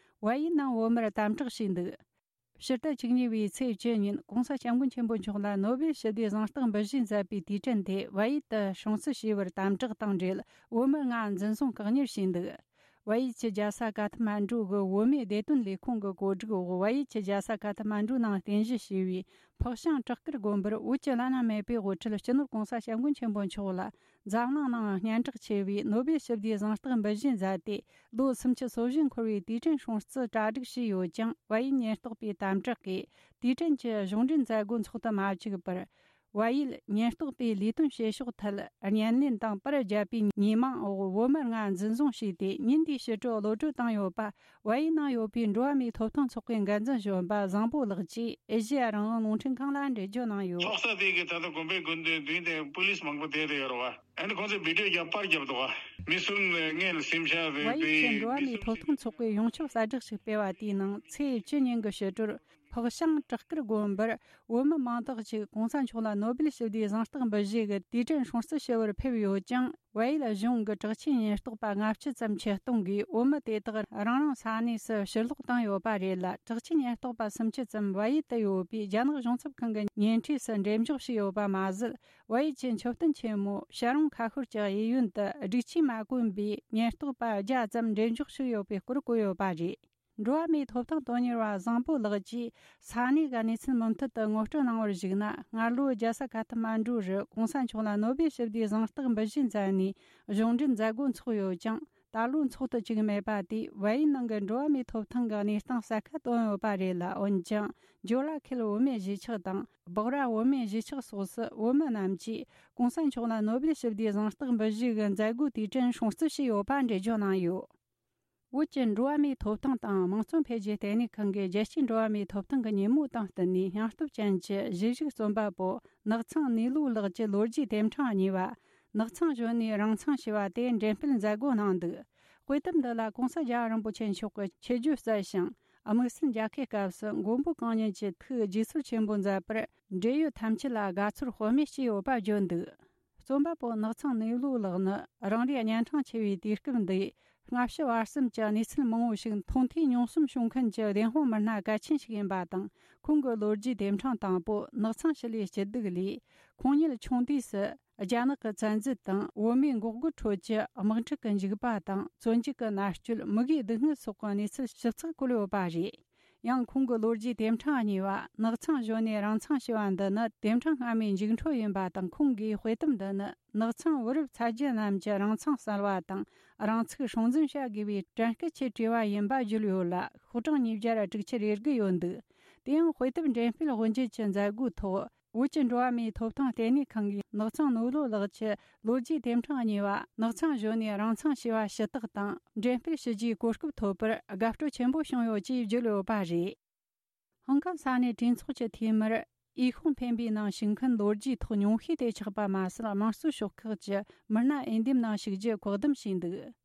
བལ་ཡུལ་ནང་བོད་མིར་དམ་དྲག་བྱས་འདུག་ཕྱི་ཟླ་བཅུ་གཉིས་པའི་ཚེས་བཅུ་ཉིན་གོང་ས་སྐྱབས་མགོན་ཆེན་པོ་མཆོག་ལ་ནོ་སྦེལ་ཞི་བདེའི་གཟེངས་རྟགས་འབུལ་བཞིན་མཛད་པའི་དུས་དྲན་དེ་བལ་ཡུལ་དུ་སྲུང་བརྩི་བྱས་པར་དམ་དྲག་དང་འབྲེལ་བོད་མི་ལྔ་འཛིན་བཟུང་བཀག་ཉར་བྱས་འདུག་བལ་ཡུལ་གྱི་རྒྱལ་ས་ཀ་ཐ་མན་ཌུ་གི་བོད་མིའི་བདེ་དོན་ལས་ཁུངས་ཀྱི་གོ་སྒྲིག་འོག་བལ་ཡུལ་གྱི་རྒྱལ་ས་ཀ་ཐ་མན་ཌུ་ནང་རྟེན་གཞི་བྱས་པའི་ཕག་ཤང་བྲག་དཀར་དགོན་པར་བོད་ཀྱི་བླ་ན་མེད་པའི་དབུ་ཁྲིད་སྤྱི་ནོར་གོང་ས་སྐྱབས་མགོན་ཆེན་པོ་མཆོག་ལ་འཛམ་གླིང་ནང་སྙན་གྲགས་ཆེ་བའི་ནོ་སྦེལ་ཞི་བདེའི་གཟེངས་རྟགས་འབུལ་བཞིན་མཛད་དེ། ལོ་སུམ་ཅུ་སོ་བཞི་འཁོར་བའི་དུས་དྲན་སྲུང་བརྩི་གྲ་སྒྲིག་བྱས་ཡོད་ཀྱང་། བལ་ཡུལ་ཉེན་རྟོག་པའི་དམ་དྲག་གིས་དུས་དྲན་གྱི་གཞུང་འབྲེལ་མཛད་སྒོ་འཚོགས་དུ་མ་བཅུག་པར། བལ་ཡུལ་ཉེན་རྟོག་པས་ལས་དོན་བྱེད་ཕྱོགས་ཐད་བརྙན་ལེན་དང་པར་བརྒྱབ་པའི་ཉེས་མིང་འོག་བོད་མི་ལྔ་འཛིན་བཟུང་བྱས་ཏེ། ཉིན་དེའི་ཕྱི་དྲོ་གློད་བཀྲོལ་བཏང་ཡོད་པ། བལ་ཡུལ་ནང་ཡོད་པའི་འགྲོ་བ་མིའི་ཐོབ་ཐང་ཚོགས་པའི་འགན་འཛིན་གཞོན་པ་བཟང་པོ་ལགས་ཀྱིས་ཨེ་ཤེ་ཡ་རང་དབང་རླུང་འཕྲིན་ཁང་ལ་འགྲེལ་བརྗོད་གནང་ཡོད། ཚོགས་ས་དེ་གི་ད་ལྟ་དགོན་པའི་དགོན་སྡེ་མདུན་དེ་པུ་ལིས་མང་པོ་བསྡད་དེ་ཡོད་རེད་བ། ཨ་ནི་ཁོང་ཚོས་བི་ཌིའོ་རྒྱབ་པར་རྒྱབ་འདུག་བ། མི་གསུམ་སྔོན་ལ་སེམས་ཤག་བལ་ཡུལ་གྱི་འགྲོ་བ་མིའི་ཐོབ་ཐང་ཚོགས་པའི་ཡོངས་ཁྱབ་གསལ་བསྒྲགས་ཤིག་སྤེལ་བ་དེའི་ནང་ཚེས་བཅུ་ཉིན་གྱི་ཕྱི་དྲོར་ཕག་ཤང་བྲག་དཀར་དགོན་པར་བོད་མི་མང་དག་ཅིག་གོང་ས་མཆོག་ལ་ནོ་སྦེལ་ཞི་བདེའི་གཟེངས་རྟགས་འབུལ་བཞེས་ཀྱི་དུས་དྲན་སྲུང་བརྩི་ཞུ་བར་ཕེབས་ཡོད་ཀྱང་། བལ་ཡུལ་གཞུང་གི་དྲག་ཆས་ཉེན་རྟོག་པ་ལྔ་བཅུ་ཙམ་ཆེད་གཏོང་གིས་བོད་མི་དེ་དག་རང་རང་ས་གནས་སུ་ཕྱིར་ལོག་བཏང་ཡོད་པ་རེད་ལ། དྲག་ཆས་ཉེན་རྟོག་པ་སུམ་ཅུ་ཙམ་བལ་ཡུལ་དུ་ཡོད་པའི་རྒྱ་ནག་གཞུང་ཚབ་ཁང་གི་ཉེ་འཁྲིས་སུ་འགྲེམས་འཇོག་བྱས་ཡོད་པ་མ་ཟད། བལ་ཡུལ་གྱི་མཆོད་རྟེན་ཆེན་མོ་ཤ་རོང་ཁ་ཤོར་གྱི་གཡས་གཡོན་དུ་སྒྲིག་ཆས་མ་གོན་པའི་ཉེན་རྟོག་པ་བརྒྱ་ཙམ་འགྲེམས་འཇོག་བྱས་ཡོད་པའི་སྐོར་བཀོད་ཡོད་པ་རེད། འགྲོ་བ་མིའི་ཐོབ་ཐང་དོན་གཉེར་བ་བཟང་པོ་ལགས་ཀྱིས་ས་གནས་ཀྱི་གནས་ཚུལ་མུ་མཐུད་དུ་ངོ་སྤྲོད་གནང་བར་གཞིགས་ན། སྔ་ལོའི་རྒྱལ་ས་ཁ་ཐ་མན་གྲུ་རུ་གོང་ས་མཆོག་ལ་ནོ་སྦེལ་ཞི་བདེའི་གཟེངས་རྟགས་འབུལ་བཞེས་མཛད་ནས་གཞུང་འབྲེལ་མཛད་སྒོ་འཚོགས་ཡོད་ཀྱང་། ད་ལོ་འཚོགས་ཐུབ་ཅིག་མེད་པ་དེས་བལ་ཡུལ་ནང་གི་འགྲོ་བ་མིའི་ཐོབ་ཐང་གི་གནས་སྟངས་གསལ་ཁ་བཏོན་ཡོད་པ་རེད་ལ། འོན་ཀྱང་ཇོ་ལ་ཁེལ་བུད་མེད་གཞིས་ཆགས་དང་། སྦག་ར་བུད་མེད་གཞིས་ཆགས་སོགས་སུ་བུད་མེད་རྣམས་ཀྱིས་གོང་ས་མཆོག་ལ་ནོ་སྦེལ་ཞི་བདེའི་གཟེངས་རྟགས་འབུལ་བཞེས་ཀྱི་མཛད་སྒོའི་དུས་དྲན་སྲུང་བརྩི་བྱས་ཡོད་པ་འགྲེལ་བརྗོད་གནང་ཡོད། བོད་ཀྱི་འགྲོ་བ་མིའི་ཐོབ་ཐང་དང་དམངས་གཙོ་འཕེལ་རྒྱས་ལྟེ་གནས་ཁང་གིས་རྒྱལ་སྤྱིའི་འགྲོ་བ་མིའི་ཐོབ་ཐང་གི་ཉིན་མོ་དང་བསྟུན་ནས་སྙིང་སྟོབས་ཅན་གྱི་གཞིས་བཞུགས་རྩོམ་པ་པོ་ནགས་ཚང་ནུས་ལོ་ལགས་ཀྱི་ལོ་རྒྱུས་དེབ་ཕྲེང་གཉིས་པ། ནགས་ཚང་གཞོན་ནུའི་རང་མཚང་ཞེས་པ་དེ་འགྲེམས་སྤེལ་མཛད་སྒོ་གནང་འདུག། དཔེ་དེབ་འདི་ལ་གོང་ས་རྒྱལ་བ་རིན་པོ་ཆེ་མཆོག་གི་ཆེད་བརྗོད་གསལ་ཞིང་། དམིགས་བསལ་མཇལ་ཁའི་སྐབས་སུ་མགོན་པོ་གང་ཉིད་ཀྱི་ཐུགས་དགྱེས་ཚོར་ཆེན་པོ་མཛད་པར་འབྲེལ་ཡོད་ཐམས་ཅད་ལ་དགའ་ཚོར་ལྷོད་མེད་སྐྱེས་ཡོད་པ་བརྗོད་འདུག། རྩོམ་པ་པོ་ནགས་ཚང་ནུས་ལོ་ལགས་ནི་རང་རེའི་གཉན་འཕྲང་ཆེ་བའི་དུས་སྐབས་འདིའི་སྔ་ཕྱི་བར་གསུམ་གྱི་གནས་ཚུལ་མང་བོ་ཞིག་མཐོང་ཐོས་མྱོང་གསུམ་བྱུང་མཁན་གྱི་བདེན་དཔང་མི་སྣ་གལ་ཆེན་ཞིག་ཡིན་པ་དང་། ཁོང་གི་ལོ་རྒྱུས་དེབ་ཕྲེང་དང་པོ་ནགས་ཚང་ཞི་ལུའི་སྐྱིད་སྡུག་ལས། ཁོང་ཉིད་ཆུང་དུས་སུ་རྒྱ་ནག་གི་བཙན་འཛུལ་དང་བོད་མིའི་འགོག་རྒོལ་ཁྲོད་ཀྱི་དམག་འཁྲུག་གི་འཇིགས་པ་དང་། བཙོན་འཇུག་གི་མནར་གཅོད། མུ་གེའི་སྡུག་བསྔལ་སོགས་ཀྱི་གནས་ཚུལ་ཞིབ་ཚགས་བཀོད་ཡོད་པ་རེད། ཡང་ཁོང་གི་ལོ་རྒྱུས་དེབ་ཕྲེང་གཉིས་པ་ནགས་ཚང་གཞོན་ནུའི་རང་མཚང་ཞེས་པ་འདི་ནི་དེབ་ཕྲེང་སྔ་མའི་མཇུག་འཕྲོ་ཡིན་པ་དང་། ཁོང་གིས་དཔེ་དེབ་འདི་ནི་ནགས་ཚང་བུ་རབས་ཚ་རྒྱུད་རྣམས་ཀྱི་རང་མཚང་གསལ་བ་དང་། རང་ཚུགས་སྲུང་འཛིན་བྱ་དགོས་པའི་དྲན་སྐུལ་ཆེད་བྲིས་པ་ཡིན་པ་བརྗོད་ཡོད་ལ། ཤོག་གྲངས་ཉིས་བརྒྱ་དྲུག་ཅུ་རེ་དགུ་ཡོད་འདུག། དེ་ཡང་དཔེ་དེབ་འགྲེམས་སྤེལ་དབུ་འབྱེད་ཀྱི་མཛད་སྒོའི་ཐོག། བོད་ཀྱི་འགྲོ་བ་མིའི་ཐོབ་ཐང་ལྟེ་གནས་ཁང་གིས་ནགས་ཚང་ནུས་ལོ་ལགས་ཀྱི་ལོ་རྒྱུས་དེབ་ཕྲེང་གཉིས་པ་ནགས་ཚང་གཞོན་ནུའི་རང་མཚང་ཞེས་པ་ཞུ་དག་དང་འགྲེམས་སྤེལ་ཞུ་རྒྱུའི་གོ་སྐབས་ཐོབ་པར་དགའ་སྤྲོ་ཆེན་པོ་བྱུང་ཡོད་ཅེས་བརྗོད་ཡོད་པ་རེད། ཧང་ཀང་ས་གནས་གྲོས་ཚོགས་ཀྱི་འཐུས་མིར་འོས་ཤོག་འཕེན་པའི་ནང་ཞུགས་མཁན་ལོ་རྒྱུས་ཐོག་ཉུང་ཤས་དེ་ཆགས་པ་མ་ཟད། དམངས་གཙོའི་ཤོག་ཁག་གི་མི་སྣ་འོས་འདེམས་ནང་ཞུགས་རྒྱུ་བཀག་སྡོམ་བྱས་འདུག།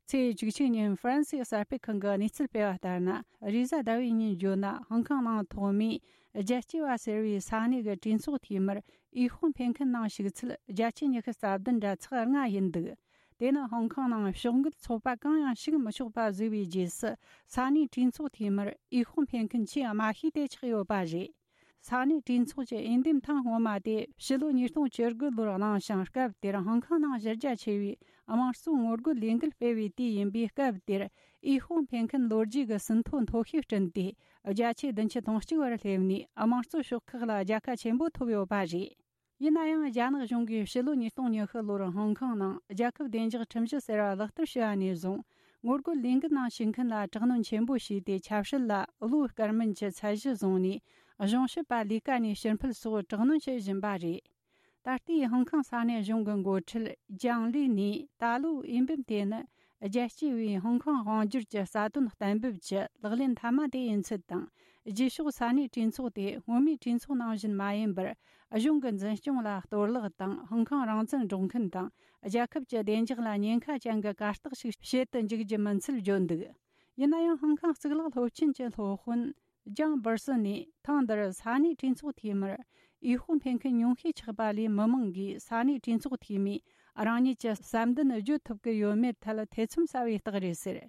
ཚེས་བཅུ་གཅིག་ཉིན་ཧྥ་རན་སིའི་གསར་སྤེལ་ཁང་གི་གནས་ཚུལ་སྤེལ་བ་ལྟར་ན། རེས་གཟའ་ཟླ་བའི་ཉིན་བརྗོད་ན། ཧང་ཀང་ནང་ཐོག་མའི་རྒྱལ་གཅེས་པ་ཟེར་བའི་ས་གནས་ཀྱི་གྲོས་ཚོགས་འཐུས་མིར་འོས་ཤོག་འཕེན་མཁན་ནང་ཞུགས་ཚུལ་བརྒྱ་ཆ་ཉི་ཤུ་རྩ་བདུན་འདྲ་ཚེག་ལྔ་ཡིན་འདུག། དེ་ནི་ཧང་ཀང་ནང་ཕྱོགས་འགལ་ཚོགས་པ་གང་ཡང་ཞུགས་མི་ཆོག་པ་བཟོས་པའི་རྗེས་སུ། ས་གནས་གྲོས་ཚོགས་འཐུས་མིར་འོས་ཤོག་འཕེན་མཁན་ཆེས་དམའ་ཤོས་དེ་ཆགས་ཡོད་པ་རེད། ས་གནས་གྲོས་ཚོགས་ཀྱི་འོས་འདེམས་ཐེངས་སྔོན་མ་དེ་ཕྱི་ལོ་ཉིས་སྟོང་བཅུ་དགུ་ལོར་གནང་ཞིང་། སྐབས་དེར་ཧང་ཀང་ནང་གཞི་རྒྱ་ཆེ་བའི་དམངས་གཙོའི་ངོ་རྒོལ་ལས་འགུལ་སྤེལ་བའི་དུས་ཡིན་པས། སྐབས་དེར་འོས་ཤོག་འཕེན་མཁན་ལོ་རྒྱུས་ཀྱི་ཟིན་ཐོ་མཐོ་ཤོས་བསྐྲུན་ཏེ། བརྒྱ་ཆ་བདུན་ཅུ་དོན་གཅིག་བར་སླེབས་ནས། དམངས་གཙོ་ཤོག་ཁག་ལ་རྒྱལ་ཁ་ཆེན་པོ་ཐོབ་ཡོད་པ་རེད། ཡིན་ན་ཡང་། རྒྱ་ནག་གཞུང་གིས་ཕྱི་ལོ་ཉིས་སྟོང་ཉི་ཤུ་ལོར་ཧོང་ཀོང་ནང་རྒྱལ་ཁབ་བདེ་འཇགས་ཁྲིམས་གཞི་ཟེར་བ་ལག་བསྟར་བྱས་པ་ནས་བཟུང་། ངོ་རྒོལ་ལས་འགུལ་ནང་ཞུགས་མཁན་ལ་དྲག་གནོན་ཆེན་པོ་བྱས་ཏེ། ཆབ་སྲིད་ལ་བློ་དཀར་མིན་གྱི་ཚད་གཞི་བཟུང་ནས། གཞུང་ཞབས་པ་ལས་ཀ་ནས་ཕྱིར་འཕུད་སོགས་དྲག་གནོན་བྱེད་བཞིན་པ་རེད། ད་ལྟའི་ཧོང་ཀོང་ས་གནས་གཞུང་གི་འགོ་ཁྲིད་ཅང་ལི་ནས། ད་ལོའི་འོས་འབུམ་དེ་ནི་རྒྱལ་སྤྱིའི་བའི་ཧོང་ཀོང་དབང་སྒྱུར་གྱི་རྩ་དོན་གཏན་འབེབས་ཀྱི་ལག་ལེན་མཐའ་མ་དེ་ཡིན་ཚུལ་དང་། རྗེས་ཕྱོགས་ས་གནས་གྲོས་ཚོགས་དེ་སྔོན་མའི་གྲོས་ཚོགས་ནང་བཞིན་མ་ཡིན་པར། གཞུང་གི་འཛིན་སྐྱོང་ལ་གཏོར་བརླག་དང་། ཧོང་ཀོང་རང་བཙན་སྒྲོག་མཁན་དང་། རྒྱལ་ཁབ་ཀྱི་བདེ་འཇགས་ལ་ཉེན་ཁ་ཅན་གྱི་གར་སྟེགས་ཤིག་བྱེད་དུ་འཇུག་རྒྱུ་མིན་ཚུལ་བརྗོད་འདུག། ཡིན་ན་ཡང་། ཧོང་ཀོང་གཙུག་ལག་སློབ་ཆེན་གྱི་སློབ་དཔོན་ལྗང་སྦུར་སི་ནས། ཐེངས་འདིར་ས་གནས་གྲོས་ཚོགས་འཐུས་མིར་འོས་ཤོག་འཕེན་མཁན་ཉུང་ཤས་ཆགས་པ་ལས། མི་མང་གིས་ས་གནས་གྲོས་ཚོགས་འཐུས་མིས་རང་ཉིད་ཀྱི་བསམ་འདུན་བརྗོད་ཐུབ་ཀྱི་ཡོད་མེད་ཐད་ཐེ་ཚོམ་ཟ་བའི་རྟགས་རེད་ཟེར།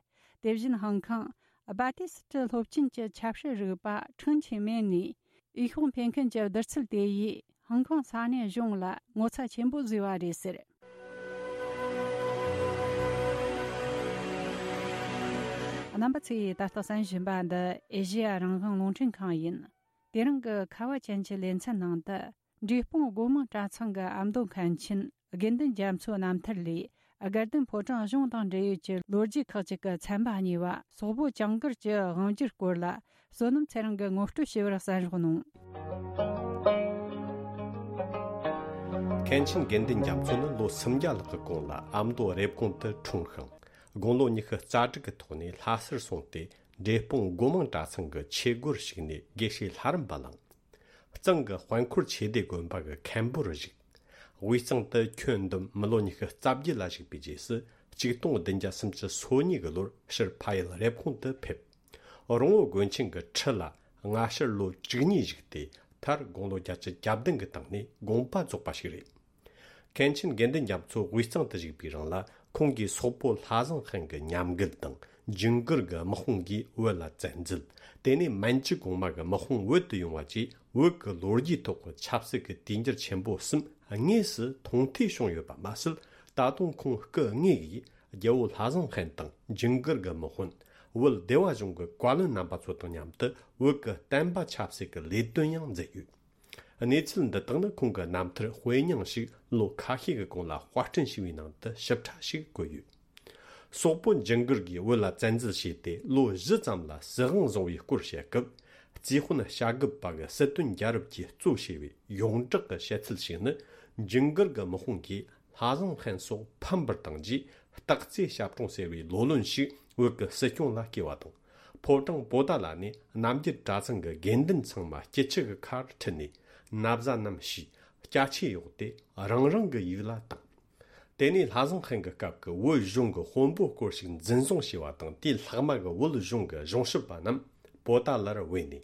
དེ་བཞིན་ཧོང་ཀོང་སྦ་ཏི་སི་ཏི་སློབ་ཆེན་གྱི་ཆབ་སྲིད་རིག་པ་ཁྲིན་ཆི་མེན་ནས། འོས་ཤོག་འཕེན་མཁན་གྱི་བསྡུར་ཚུལ་དེ་ཡིས་ཧོང་ཀོང་ས་གནས་གཞུང་ལ་ངོ་ཚ་ཆེན་པོ་བཟོས་པ་རེད་ཟེར། རྣམ་པ་ཚོས་ད་ལྟ་གསན་བཞིན་པ་འདི་ཨེ་ཤེ་ཡ་རང་དབང་རླུང་འཕྲིན་ཁང་ཡིན། དེ་རིང་གི་ཁ་བ་ཅན་གྱི་ལེ་ཚན་ནང་དུ། འབྲས་སྤུངས་སྒོ་མང་གྲྭ་ཚང་གི་ཨ་མདོ་མཁན་ཆེན་དགེ་འདུན་རྒྱ་མཚོ་རྣམ་ཐར་ལས། དགའ་ལྡན་ཕོ་བྲང་གཞུང་དང་འབྲེལ་ཡོད་ཀྱི་ལོ་རྒྱུས་ཁག་ཅིག་གི་ཚན་པ་གཉིས་པ། སོག་པོ་ཇུང་གིར་གྱི་དབང་སྒྱུར་སྐོར་ལ། བསོད་ནམས་ཚེ་རིང་གིས་ངོ་སྤྲོད་ཞུ་བར་གསན་རོགས་གནང་། མཁན་ཆེན་དགེ་འདུན་རྒྱ་མཚོ་ནི་ལོ་སུམ་བརྒྱ་ལྷག་གི་གོང་ལ་ཨ་མདོ་རེབ་གོང་དུ་འཁྲུངས་ཤིང་། དགུང་ལོ་ཉི་ཤུ་རྩ་དྲུག་གི་ཐོག་ནས་ལྷ་སར་སོང་སྟེ། འབྲས་སྤུངས་སྒོ་མང་གྲྭ་ཚང་གི་ཆོས་སྒོར་ཞུགས་ནས་དགེ་བཤེས་ལྷ་རམས་པ་བླངས། གཙང་གི་དཔལ་འཁོར་ཆོས་སྡེ་དགོན་པ་གི་མཁན་པོར་བཞུགས། དབུས་གཙང་དུ་ཁྱོན་བསྡོམས་མི་ལོ་ཉི་ཤུ་རྩ་བརྒྱད་ལ་བཞུགས་པའི་རྗེས་སུ། ཆིག་སྟོང་བདུན་བརྒྱ་སུམ་ཅུ་སོ་གཉིས་ཀྱི་ལོར་ཕྱིར་ཕ་ཡུལ་རེབ་གོང་དུ་ཕེབས། རོང་བོ་དགོན་ཆེན་གྱི་ཁྲི་ལ་སྔ་ཕྱིར་ལོ་བཅུ་གཉིས་བཞུགས་ཏེ། མཐར་དགུང་ལོ་བརྒྱད་ཅུ་གྱ་བདུན་གྱི་སྟེང་ནས་དགོངས་པ་རྫོགས་པ་ཞིག་རེད། མཁན་ཆེན་དགེ་འདུན་རྒྱ་མཚོ་དབུས་གཙང་དུ་བཞུགས་པའི་རིང་ལ། ཁོང་གིས་སོག་པོ་ལྷ་བཟང་ཧན་གྱི་ཉམས་རྒུད་དང་། ཇུང་གིར་གྱི་དམག་དཔུང་གིས་བོད་ལ་བཙན་འཛུལ། དེ་ནས་མན་ཇུ་གོང་མ་གི་དམག་དཔུང་བོད་དུ་ཡོང་བ་བཅས། བོད་ཀྱི་ལོ་རྒྱུས་ཐོག་གི་ཆབ་སྲིད་ཀྱི་དུས་འགྱུར་ཆེན་པོ་གསུམ་དངོས་སུ་མཐོང་ཐོས་བྱུང་ཡོད་པ་མ་ཟད། ད་དུང་ཁོང་སྐུ་དངོས་ཀྱིས་རྒྱལ་བོ་ལྷ་བཟང་ཧན་དང་། ཇུང་གིར་གྱི་དམག་དཔོན། ། བོད་སྡེ་བ་གཞུང་གི་བཀའ་བློན་རྣམ་པ་ཚོ་དང་མཉམ་དུ་བོད་ཀྱི་བསྟན་པ་ཆབ་སྲིད་ཀྱི་ལས་དོན་ཡང་མཛད་ཡོད། གནས་ཚུལ་འདི་དག་ནི་ཁོང་གི་རྣམ་ཐར་དཔེ་རྙིང་ཞིག་ལོ་ཁ་ཤས་ཀྱི་གོང་ལ་དཔར་སྐྲུན་བྱས་པའི་ནང་དུ་ཞིབ་ཕྲ་ཞིག་བཀོད་ཡོད། སོག་པོ་ཇིང་གིར་གྱིས་བོད་ལ་བཙན་འཛུལ་བྱས་ཏེ་ལོ་བཞི་ཙམ་ལ་སྲིད་དབང་བཟུང་བའི་སྐོར་བཤད་སྐབས། རྩིས་དཔོན་བྱ་རྒོད་པ་གི་སྲིད་དོན་རྒྱལ་རབས་ཀྱིས་གཙོ་བྱས་པའི་ཡོངས་གྲགས་ཀྱི་བཤད་ཚུལ་ཞིག་ནི། ཇིང་གིར་གྱི་དམག་དཔུང་གིས་ལྷ་བཟང་ཧན་སོགས་ཕམ་པར་བཏང་རྗེས། སྟག་རྩེ་ཞབས་དྲུང་ཟེར་བའི་ལོ་ལོན་ཞིག་བོད་ཀྱི་སྲིད་སྐྱོང་ལ་བསྐོས་པ་དང་། ཕོ་བྲང་པོ་ཏཱ་ལ་ནས་རྣམ་རྒྱལ་གྲྭ་ཚང་གི་དགེ་འདུན་ཚང་མ་སྐྱིད་ཆུ་གི་ཁར་ཁྲིད་ནས། ན་བཟའ་རྣམས་ཕྱིས། སྐྱ་ཆས་གཡོགས་ཏེ་རང་རང་གི་ཡུལ་ལ་བཏང་། དེ་ནས་ལྷ་བཟང་ཧན་གྱི་སྐབས་ཀྱི་བོད་གཞུང་གི་དཔོན་པོ་སྐོར་ཞིག་འཛིན་བཟུང་བྱས་པ་དང་། དེའི་ལྷག་མ་གི་བོད་གཞུང་གི་གཞུང་ཞབས་པ་རྣམས་པོ་ཏཱ་ལར་བོས་ནས།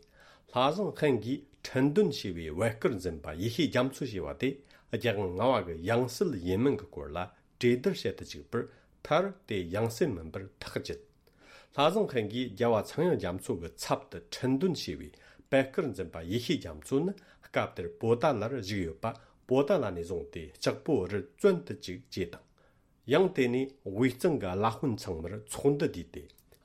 ལྷ་བཟང་ཧན་གྱིས་ཁྲིན་ཏུན་ཞེས་པའི་བོད་སྐལ་འཛིན་པ་ཡེ་ཤེས་རྒྱ་མཚོ་ཞེས་པ་དེ་རྒྱལ་དབང་ལྔ་པ་གི་ཡང་སྲིད་ཡིན་མིན་གྱི་སྐོར་ལ་གྲོས་བསྡུར་བྱེད་དུ་བཅུག་པར། མཐར་དེ་ཡང་སྲིད་མིན་པར་ཐག་བཅད། ལྷ་བཟང་ཧན་གྱིས་རྒྱལ་བ་ཚངས་དབྱངས་རྒྱ་མཚོ་གི་ཚབ་ཏུ་ཁྲིན་ཏུན་ཞེས་པའི་བོད་སྐལ་འཛིན་པ་ཡེ་ཤེས་རྒྱ་མཚོ་ནི་སྐབས་དེར་པོ་ཏཱ་ལར་བཞུགས་ཡོད་པ། པོ་ཏཱ་ལ་ནས་བཟུང་སྟེ་ལྕགས་པོ་རི་བཙོན་དུ་བཅུག་ཅེས་དང་། ཡང་དེ་ནས་དབུས་གཙང་གི་བླ་དཔོན་ཚང་མར་ཚོགས་འདུ་བསྡུས་ཏེ།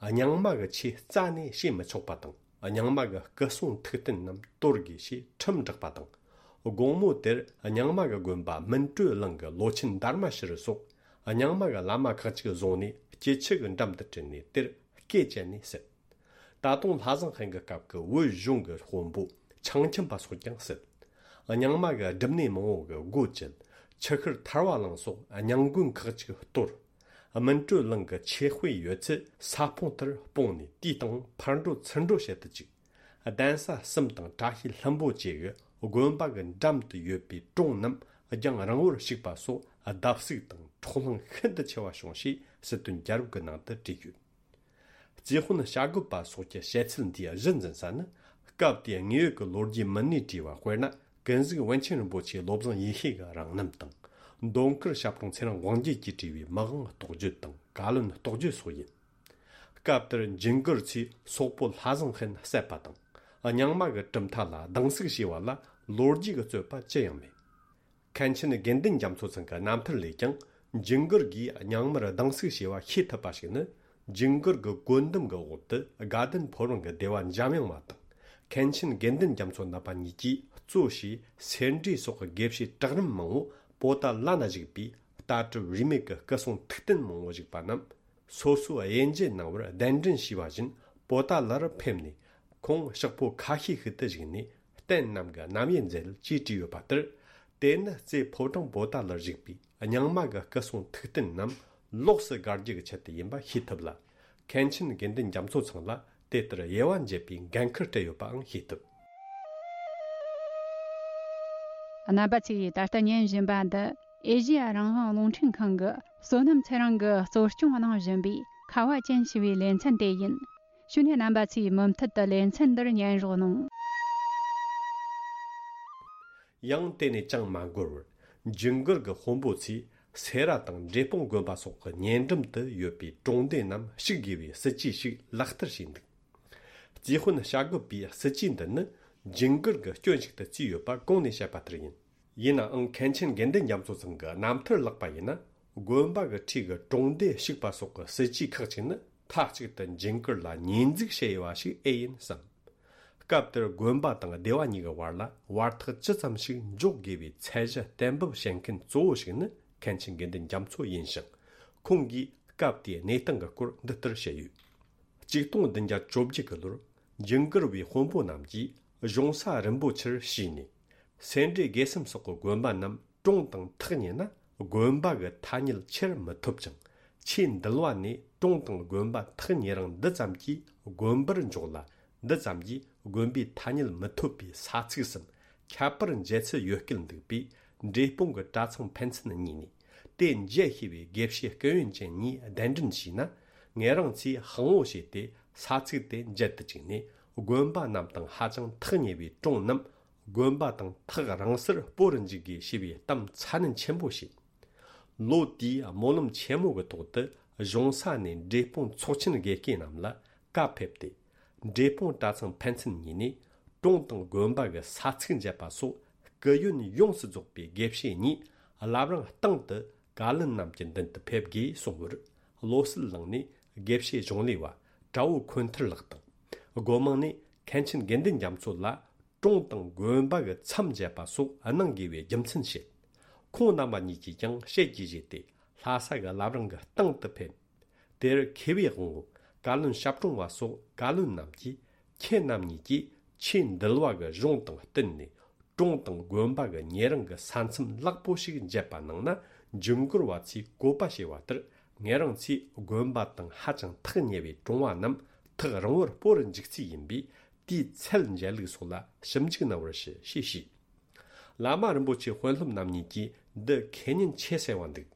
རྙིང་མ་གི་ཆོས་རྩ་ནས་བྱེད་མི་ཆོག་པ་དང་། རྙིང་མ་གི་སྐུ་སྲུང་ཐུགས་རྟེན་རྣམས་གཏོར་དགོས་ཞེས་ཁྲིམས་བསྒྲགས་པ་དང་། དགོང་མོ་དེར་རྙིང་མ་གི་དགོན་པ་སྨིན་གྲོལ་གླིང་གི་ལོ་ཆེན་དར་མ་ཤི་རི་སོགས་རྙིང་མ་གི་བླ་མ་ཁག་ཅིག་བཟུང་ནས་སྐྱིད་ཆུ་གི་འགྲམ་དུ་ཁྲིད་ནས་དེར་སྐེ་བཅད་ནས་བསད། ད་དུང་ལྷ་བཟང་ཧན་གྱི་སྐབས་ཀྱི་བོད་གཞུང་གི་དཔོན་པོ་ཆང་ཁྱིམ་པ་སོགས་ཀྱང་བསད། རྙིང་མ་གི་སྒྲུབ་གནས་མང་བོ་གི་སྒོ་བཅད། ཆུ་ཤུར་ཐར་བ་གླིང་སོགས་རྙིང་དགོན་ཁག་ཅིག་གཏོར། སྨིན་གྲོལ་གླིང་གི་ཆོས་དཔེ་ཡོད་ཚད་ས་སྤུངས་དེར་སྤུངས་ནས། དེའི་སྟེང་ཕར་འགྲོ་ཚུར་འགྲོ་བྱེད་དུ་བཅུག། གདན་ས་གསུམ་དང་བཀྲ་ཤིས་ལྷུན་པོ་བཅས་ཀྱི་དགོན་པ་གི་འགྲམ་དུ་ཡོད་པའི་གྲོང་རྣམས་རྒྱང་རིང་བོར་བཤིག་པ་སོགས་བརྡབ་གསིག་དང་འཕྲོག་ལྷིང་ཤིན་ཏུ་ཆེ་བ་བྱུང་ཞེས་སྲིད་དོན་རྒྱལ་རབས་ཀྱི་ནང་དུ་བྲིས་ཡོད། རྩིས་དཔོན་བྱ་རྒོད་པ་སོགས་ཀྱི་བཤད་ཚུལ་འདིའི་གཞི་འཛིན་ས་ནི། སྐབས་དེའི་དངོས་ཡོད་ཀྱི་ལོ་རྒྱུས་མི་སྣས་བྲིས་པ། དཔེར་ན། ཀུན་གཟིགས་པཎ་ཆེན་རིན་པོ་ཆེའི་བློ་བཟང་ཡེ་ཤེས་ཀྱི་རང་རྣམ་དང་། མདོ་མཁར་ཞབས་དྲུང་ཚེ་རིང་དབང་རྒྱལ་གྱིས་བྲིས་པའི་མི་དབང་རྟོགས་བརྗོད་དང་བཀའ་བློན་རྟོགས་བརྗོད་སོགས་ཡིན། སྐབས་དེར་ཇིང་གིར་ཚོས་སོག་པོ་ལྷ་བཟང་ཧན་བསད་པ་དང་། རྙིང་མ་གི་གྲུབ་མཐའ་ལ་སྡང་ཟུག་བྱས་པ་ལ་ལོ་རྒྱུས་ཀྱི་རྩོད་པ་ཅི་ཡང་མེད། མཁན་ཆེན་དགེ་འདུན་རྒྱ་མཚོ་ཚང་གི་རྣམ་ཐར་ལས་ཀྱང་། ཇིང་གིར་གྱིས་རྙིང་མར་སྡང་ཟུག་བྱས་པ་ཤེས་ཐུབ་པ་ཞིག་ནི། ཇིང་གིར་གྱི་བཀོད་འདོམས་ཀྱི་འོག་ཏུ་དགའ་ལྡན་ཕོ་བྲང་གི་སྡེ་བ་འཇམ་དབྱངས་མ་དང་། མཁན་ཆེན་དགེ་འདུན་རྒྱ་མཚོ་རྣམ་པ་གཉིས་ཀྱིས་གཙོ་བྱས་སེ་འབྲས་སོགས་ཀྱི་དགེ་བཤེས་གྲལ་རིམ་མང་བོ་པོ་ཏཱ་ལ་ན་བཞུགས་པའི་ལྟ་གྲུབ་རིས་མེད་ཀྱི་སྐུ་སྲུང་ཐུགས་རྟེན་མང་བོ་བཞུགས་པ་རྣམས། སོ་སོའི་དབྱེ་འབྱེད་གནང་བར་གདན་འདྲེན་ཞུས་པ་བཞིན་པོ་ཏཱ་ལར་ཕེབས་ནས། ཁོང་ཕྱག་ཕོ་ཁ་ཤས་ཤིག་ཏུ་བཞུགས་ནས་རྟེན་རྣམས་ཀྱི་རྣམ་དབྱེ་མཛད་ཅེས་བྲིས་ཡོད་པ་ལྟར། དེ་ནི་རྩེ་ཕོ་བྲང་པོ་ཏཱ་ལར་བཞུགས་པའི་རྙིང་མ་གི་སྐུ་སྲུང་ཐུགས་རྟེན་རྣམས་ལོགས་སུ་དགར་རྒྱུ་གི་ཆེད་དུ་ཡིན་པ་ཤེས་ཐུབ་ལ། མཁན་ཆེན་དགེ་འདུན་རྒྱ་མཚོ་ཚང་ལ་དེ་ལྟར་དབྱེ་བ་འབྱེད་པའི་འགན་ཁུར་སྤྲད་ཡོད་པའང་ཤེས་ཐུབ། རྣམ་པ་ཚོས་ད་ལྟ་ཉན་བཞིན་པ་འདི་ཨེ་ཤེ་ཡ་རང་དབང་རླུང་འཕྲིན་ཁང་གི་བསོད་ནམས་ཚེ་རིང་གིས་གཙོ་སྐྱོང་གནང་བཞིན་པའི་ཁ་བ་ཅན་ཞེས་པའི་ལེ་ཚན་དེ་ཡིན། བྱས་ནས་རྣམ་པ་ཚོས་མུ་མཐུད་དུ་ལེ་ཚན་འདིར་ཉན་རོགས་གནང་། ཡང་དེ་ནས་ཅང་མ་འགོར་བར། ཇིང་གིར་གྱི་དཔོན་པོ་ཚོས་སེ་ར་དང་འབྲས་སྤུངས་དགོན་པ་སོགས་ཀྱི་ཉེ་འགྲམ་དུ་ཡོད་པའི་གྲོང་སྡེ་རྣམས་བཤིག་དགོས་པའི་སྲིད་ཇུས་ཤིག་ལག་བསྟར་བྱས་འདུག། རྩིས་དཔོན་བྱ་རྒོད་པའི་སྲིད་ཇུས་འདི་ནི་ཇིང་གིར་གྱི་སྐྱོན་ཞིག་ཏུ་བརྩིས་ཡོད་པ་གོང་ནས་བཤད་པ་ལྟར་ཡིན། ཡིན་ནའང་མཁན་ཆེན་དགེ་འདུན་རྒྱ་མཚོ་ཚང་གི་རྣམ་ཐར་བཀླགས་པ་ཡིན་ན། དགོན་པ་གི་འཁྲིས་ཀྱི་གྲོང་སྡེ་བཤིག་པ་སོགས་ཀྱི་སྲིད་ཇུས་ཁག་ཅིག་ནི་མཐའ་གཅིག་ཏུ་ཇིང་གིར་ལ་ཉེས་འཛུགས་བྱས་ཡོད་པ་ཞིག་ཨེ་ཡིན་བསམ། སྐབས་དེར་དགོན་པ་དང་སྡེ་བ་གཉིས་ཀྱི་བར་ལ་བར་ཐག་ཇི་ཙམ་ཞིག་འཇོག་དགོས་པའི་ཚད་གཞི་གཏན་འབེབས་བྱེད་མཁན་གཙོ་བོ་ཞིག་ནི་མཁན་ཆེན་དགེ་འདུན་རྒྱ་མཚོ་ཡིན་ཞིང་། ཁོང་གིས་སྐབས་དེའི་གནས་སྟངས་ཀྱི་སྐོར་འདི་ལྟར་བཤད་ཡོད། ཆིག་སྟོང་བདུན་བརྒྱ་བཅོ་བརྒྱད་ཀྱི་ལོར་ཇིང་གིར་བའི་དཔོན་པོ་རྣམས་ཀྱིས་གཞུང་ས་རིན་པོ་ཆེར་ཞུས་ནས། སེ་འབྲས་དགེ་གསུམ་སོགས་ཀྱི་དགོན་པ་རྣམས་གྲོངས་དང་ཐག་ཉེ་ན། དགོན་པ་གི་ཐ་སྙད་ཁྱེར་མི་ཐུབ་ཅིང་། ཆོས་འདུལ་བ་ནས་གྲོངས་དང་དགོན་པ་ཐག་ཉེ་རིང་འདི་ཙམ་གྱིས་དགོན་པར་འཇོག་ལ། འདི་ཙམ་གྱིས་དགོན་པའི་ཐ་སྙད་མི་ཐུབ་པའི་ས་ཚིགས་སམ་ཁྱད་པར་འབྱེད་ཚུལ་ཡོད་སྐད་འདུག་པས། འབྲས་སྤུངས་ཀྱི་གྲྭ་ཚང་ཕན་ཚུན་གཉིས་ནས་དེ་འབྱེད་ཤེས་པའི་དགེ་བཤེས་སྐུ་ཡོན་ཅན་གཉིས་གདན་འདྲེན་བྱས་ན། ངེད་རང་ཚོས་དབང་བོ་བྱས་ཏེ་ས་ཚིགས་དེ་འབྱེད་དུ་བཅུག་ནས། དགོན་པ་རྣམས་དང་ཧ་ཅང་ཐག་ཉེ་བའི་གྲོང་རྣམས་དགོན་པ་དང་ཐག་རིང་སར་སྤོ་རུ་འཇུག་དགོས་ཞེས་པའི་གཏམ་ཚ་ནན་ཆེན་པོ་བྱས། ལོ་དེའི་སྨོན་ལམ་ཆེན་མོ་གི་ཐོག་ཏུ་གཞུང་ས་ནས་འབྲས་སྤུངས་ཚོགས་ཆེན་དགེ་བསྐོས་རྣམས་ལ་བཀའ་ཕེབས་ཏེ། འབྲས་སྤུངས་གྲྭ་ཚང་ཕན་ཚུན་གཉིས་ནས་གྲོང་དང་དགོན་པ་གི་ས་ཚིགས་འབྱེད་པ་སོགས་སྐུ་ཡོན་ཡོངས་སུ་རྫོགས་པའི་དགེ་བཤེས་གཉིས་བླ་བྲང་སྟེང་དུ་བཀའ་བློན་རྣམས་ཀྱི་མདུན་དུ་ཕེབས་དགོས་གསུངས་པར། བློ་གསལ་གླིང་ནས་དགེ་བཤེས་གཞུང་ལས་པ་ གྲྭ་བོ་འཁོན་ཐར་ལགས་དང་། སྒོ་མང་ནས་མཁན་ཆེན་དགེ་འདུན་རྒྱ་མཚོ་ལ་གྲོང་དང་དགོན་པ་གི་མཚམས་བཅད་པ་སོགས་གནང་དགོས་པའི་རྒྱུ་མཚན་བཤད། ཁོང་རྣམ་པ་གཉིས་ཀྱིས་ཀྱང་བཤད་རྒྱུ་བཞེས་ཏེ། ལྷ་ས་གི་བླ་བྲང་གི་སྟེང་དུ་ཕེབས། དེར་མཁས་པའི་དབང་བོ་བཀའ་བློན་ཞབས་དྲུང་བ་སོགས་བཀའ་བློན་རྣམས་ཀྱིས། ཁྱེད་རྣམ་གཉིས་ཀྱིས་ཆོས་འདུལ་བ་གི་གཞུང་དང་བསྟུན་ནས། གྲོང་དང་དགོན་པ་གི་ཉེ་རིང་གི་ས་མཚམས་ལེགས་པོ་ཞིག་འབྱེད་པ་གནང་ན། འཇུན་གོར་བ་ཚོས་བཀོད་པ་བྱས་པ་ལྟར། ངེད་རང་ཚོས་དགོན་པ་དང་ཧ་ཅང་ཐག་ཉེ་བའི་གྲོང་བ་རྣམས་ཐག་རིང་བོར་སྤོ་རུ་འཇུག་རྩིས་ཡིན་པས། དེའི་ཚད་འཇལ་ལུགས་སོགས་ལ་ཞིབ་འཇུག་གནང་བར་ཞུ་ཞེས་ཞུས། བླ་མ་རིན་པོ་ཆེ་དཔོན་སློབ་རྣམ་གཉིས་ཀྱིས་འདི་ཁས་ཉན་ཆེ་གསལ་བ་འདུག་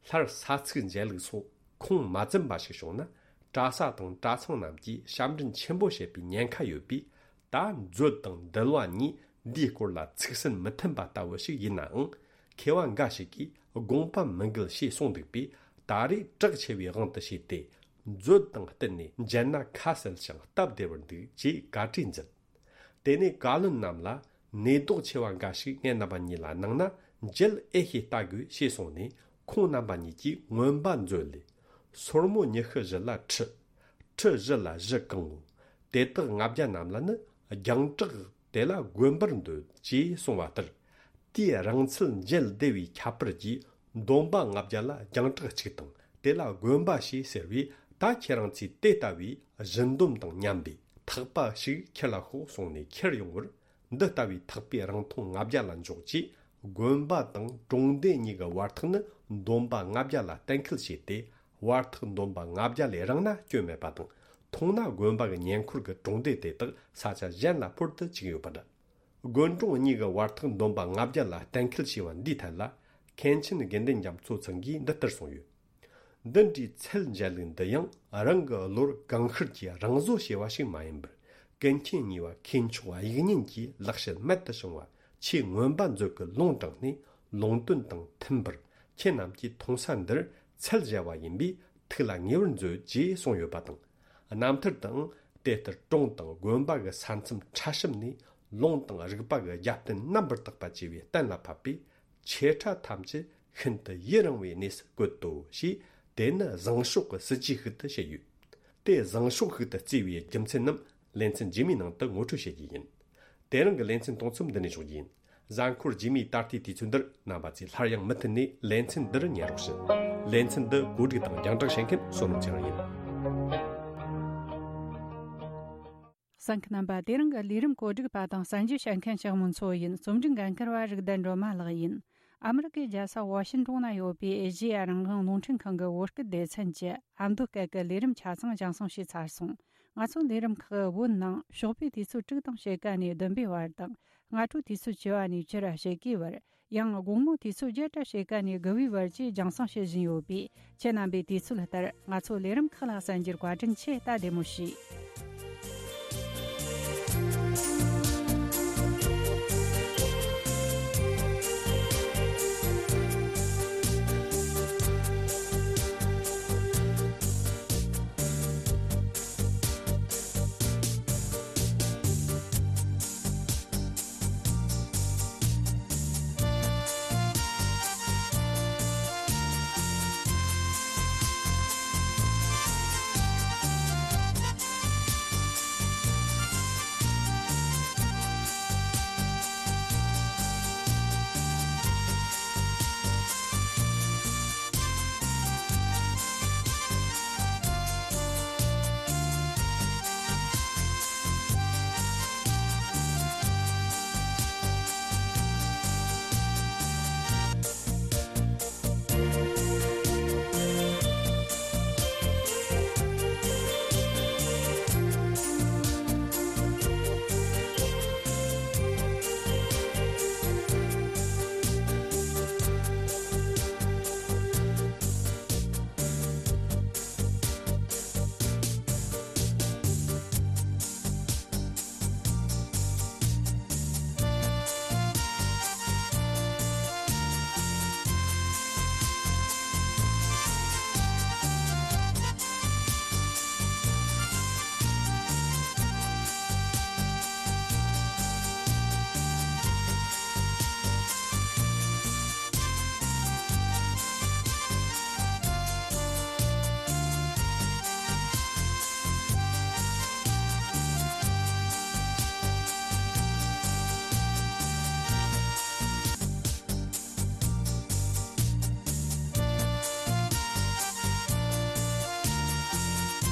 སླར་ས་ཚིགས་འཇལ་ལུགས་སོགས་ཁུངས་མ་འཛིན་པ་ཞིག་བྱུང་ན། གྲྭ་ས་དང་གྲྭ་ཚང་རྣམས་ཀྱིས་ཞབས་འདྲེན་ཆེན་པོ་བྱེད་པའི་ཉེན་ཁ་ཡོད་པས། ད་མཛོད་དང་འདུལ་བ་གཉིས་འདིའི་སྐོར་ལ་ཚིག་སྲོལ་མི་མཐུན་པ་ལྟ་བུ་ཞིག་ཡིན་ནའང་། མཁས་པ་འགའ་ཞིག་གིས་དགོངས་པ་མི་འགལ་ཞེས་གསུངས་འདུག་པས། ད་རེས་གྲགས་ཆེ་བའི་དབང་དུ་བྱས་ཏེ། མཛོད་དང་བསྟུན་ནས་འཇལ་ན་ཁ་གསལ་ཞིང་སྟབས་བདེ་བར་འདུག་ཅེས་བཀའ་དྲིན་མཛད། དེ་ནས་བཀའ་བློན་རྣམས་ལ་ནུས་ལྡོག་ཆེ་བ་འགའ་ཞིག་ངེད་རྣམ་པ་གཉིས་ལ་གནང་ན་མཇལ་ཨེ་ཤེས་ལྟ་དགོས་ཞེས་གསུངས་ནས། ཁོང་རྣམ་པ་གཉིས་ཀྱིས་མངོན་པ་མཛོད་ལས། སོར་མོ་ཉི་ཤུ་བཞི་ལ་ཁྲི། ཁྲི་བཞི་ལ་བཞི་གང་ངོ་། དེ་དག་ལྔ་བརྒྱ་རྣམས་ལ་ནི་རྒྱང་གྲགས། དེ་ལ་དགོན་པར་འདོད་ཅེས་གསུངས་པ་ལྟར། དེའི་རིང་ཚད་མཇལ་བདེ་བའི་ཁྱད་པར་གྱིས། འདོན་པ་ལྔ་བརྒྱ་ལ་རྒྱང་གྲགས་གཅིག་དང་། དེ་ལ་དགོན་པ་ཞེས་ཟེར་བས། ད་ཁྱེད་རང་ཚོས་དེ་ལྟ་བུའི་བཞི་འདོན་དང་མཉམ་པའི་ཐག་པ་ཞིག་ཁྱེར་ལ་ཤོག་གསུངས་ནས་ཁྱེར་ཡོང་བར། འདི་ལྟ་བུའི་ཐག་པའི་རིང་ཐུང་ལྔ་བརྒྱ་ལ་འཇོག་ཅེས། དགོན་པ་དང་གྲོང་སྡེ་གཉིས་ཀྱི་བར་ཐག་ནི་འདོན་པ་ལྔ་བརྒྱ་ལ་གཏན་འཁེལ་བྱས་ཏེ། བར་ཐག་འདོན་པ་ལྔ་བརྒྱ་ལས་རིང་ན་སྐྱོན་མེད་པ་དང་། ཐུང་ན་དགོན་པ་གི་ཉེ་འཁོར་གྱི་གྲོང་སྡེ་དེ་དག་ས་ཆ་གཞན་ལ་འཕུར་དུ་བཅུག་ཡོད་པ་འདྲ། དགོན་གྲོང་གཉིས་ཀྱི་བར་ཐག་འདོན་པ་ལྔ་བརྒྱ་ལ་གཏན་འཁེལ་བྱས་པ་འདིའི་ཐད་ལ། མཁན་ཆེན་དགེ་འདུན་རྒྱ་མཚོ་ཚང་གིས་འདི་ལྟར་གསུངས་ཡོད། འདི་འདྲའི་ཚད་འཇལ་ལུགས་འདི་ཡང་རང་གི་བློར་གང་ཤར་གྱིས་རང་བཟོ་བྱས་པ་ཞིག་མ་ཡིན་པར། ཀུན་མཁྱེན་གཉིས་པ་མཁས་མཆོག་དབྱིག་གཉེན་གྱི་ལེགས་བཤད་རྨད་དུ་བྱུང་བ་ཆེས་མངོན་པ་མཛོད་ཀྱི་ལུང་དྲངས་ནས། ལུང་དོན་དང་མཐུན་པར་ཁྱེད་རྣམས་ཀྱིས་མཐོང་ས་འདིར་ཚད་འཇལ་བ་ཡིན་པས། ཐུགས་ལ་ངེས་པར་མཛོད་ཅེས་གསུངས་ཡོད་པ་དང་། རྣམ་ཐར་དུའང་དེ་ལྟར་གྲོང་དང་དགོན་པ་གི་ས་མཚམས་ཕྲ་ཞིབ་ནས། ལུང་དང་རིགས་པ་གི་རྒྱབ་རྟེན་རྣམ་པར་དག་པ་བཅས་པའི་གཏན་ལ་ཕབ་པས། ཆེ་ཕྲ་ཐམས་ཅད་ཤིན་ཏུ་ཡུན་རིང་བའི་གནས་སུ་བཀོད་དོ་ཞེས། དེ་ནི་བཟང་ཕྱོགས་ཀྱི་སྲིད་ཇུས་ཤིག་ཏུ་བཤད་ཡོད། དེ་བཟང་ཕྱོགས་ཤིག་ཏུ་བརྩིས་པའི་རྒྱུ་མཚན་རྣམས་ལེ་ཚན་རྗེས་མའི་ནང་དུ་ངོ་སྤྲོད་བྱེད་རྒྱུ་ཡིན། དེ་རིང་གི་ལེ་ཚན་གཏོང་མཚམས་འདི་ནས་འཇོག་རྒྱུ་ཡིན། གཟའ་འཁོར་རྗེས་མའི་ད་ལྟའི་དུས་ཚོད་འདིར་རྣམ་པ་ཚོས་སླར་ཡང་མུ་མཐུད་ནས་ལེ་ཚན་འདིར་ཉན་རོགས་ཞུ། ལེ་ཚན་འདི་གོ་སྒྲིག་དང་རྒྱང་བསྒྲགས་བྱེད་མཁན་བསོད་ནམས་ཚེ་རིང་ཡིན། གསན་མཁན་རྣམ་པ། དེ་རིང་གི་ལས་རིམ་གོ་སྒྲིག་པ་དང་གསན་རྒྱུ་བྱེད་མཁན་ཞག་མོ་མཚོ་ཡིན། རྩོམ་སྒྲིག་འགན་འཁུར་བ་རིག་ལྡན་སྒྲོལ་མ་ལགས་ཡིན། ཨ་མི་རི་ཀའི་རྒྱལ་ས་ཝ་ཤིན་ཀྲུང་ན་ཡོད་པའི་ཨེ་ཤེ་ཡ་རང་དབང་རླུང་འཕྲིན་ཁང་གི་བོད་སྐད་སྡེ་ཚན་གྱི་ཨ་མདོ་སྐད་ཀྱི་ལས་རིམ་ཆ་ཚང་རྒྱང་སྲིང་བྱས་ཚར་སོང་། ང་ཚོའི་ལས་རིམ་ཁག་བོད་ནང་ཞོགས་པའི་དུས་ཚོད་དྲུག་དང་ཕྱེད་ཀ་ནས་བདུན་པའི་བར་དང་། སྔ་དྲོའི་དུས་ཚོད་བཅུ་པ་ནས་བཅུ་ར་ཕྱེད་ཀའི་བར། ཡང་དགོང་མོའི་དུས་ཚོད་བརྒྱད་དང་ཕྱེད་ཀ་ནས་དགུ་པའི་བར་བཅས་རྒྱང་སྲིང་བྱེད་བཞིན་ཡོད་པས། ཁྱེད་རྣམ་པས་དུས་ཚོད་ལྟར་ང་ཚོའི་ལས་རིམ་ཁག་ལ་གསན་རྒྱུར་བཀའ་དྲིན་ཆེ། ད་བདེ་མོ་བྱོས།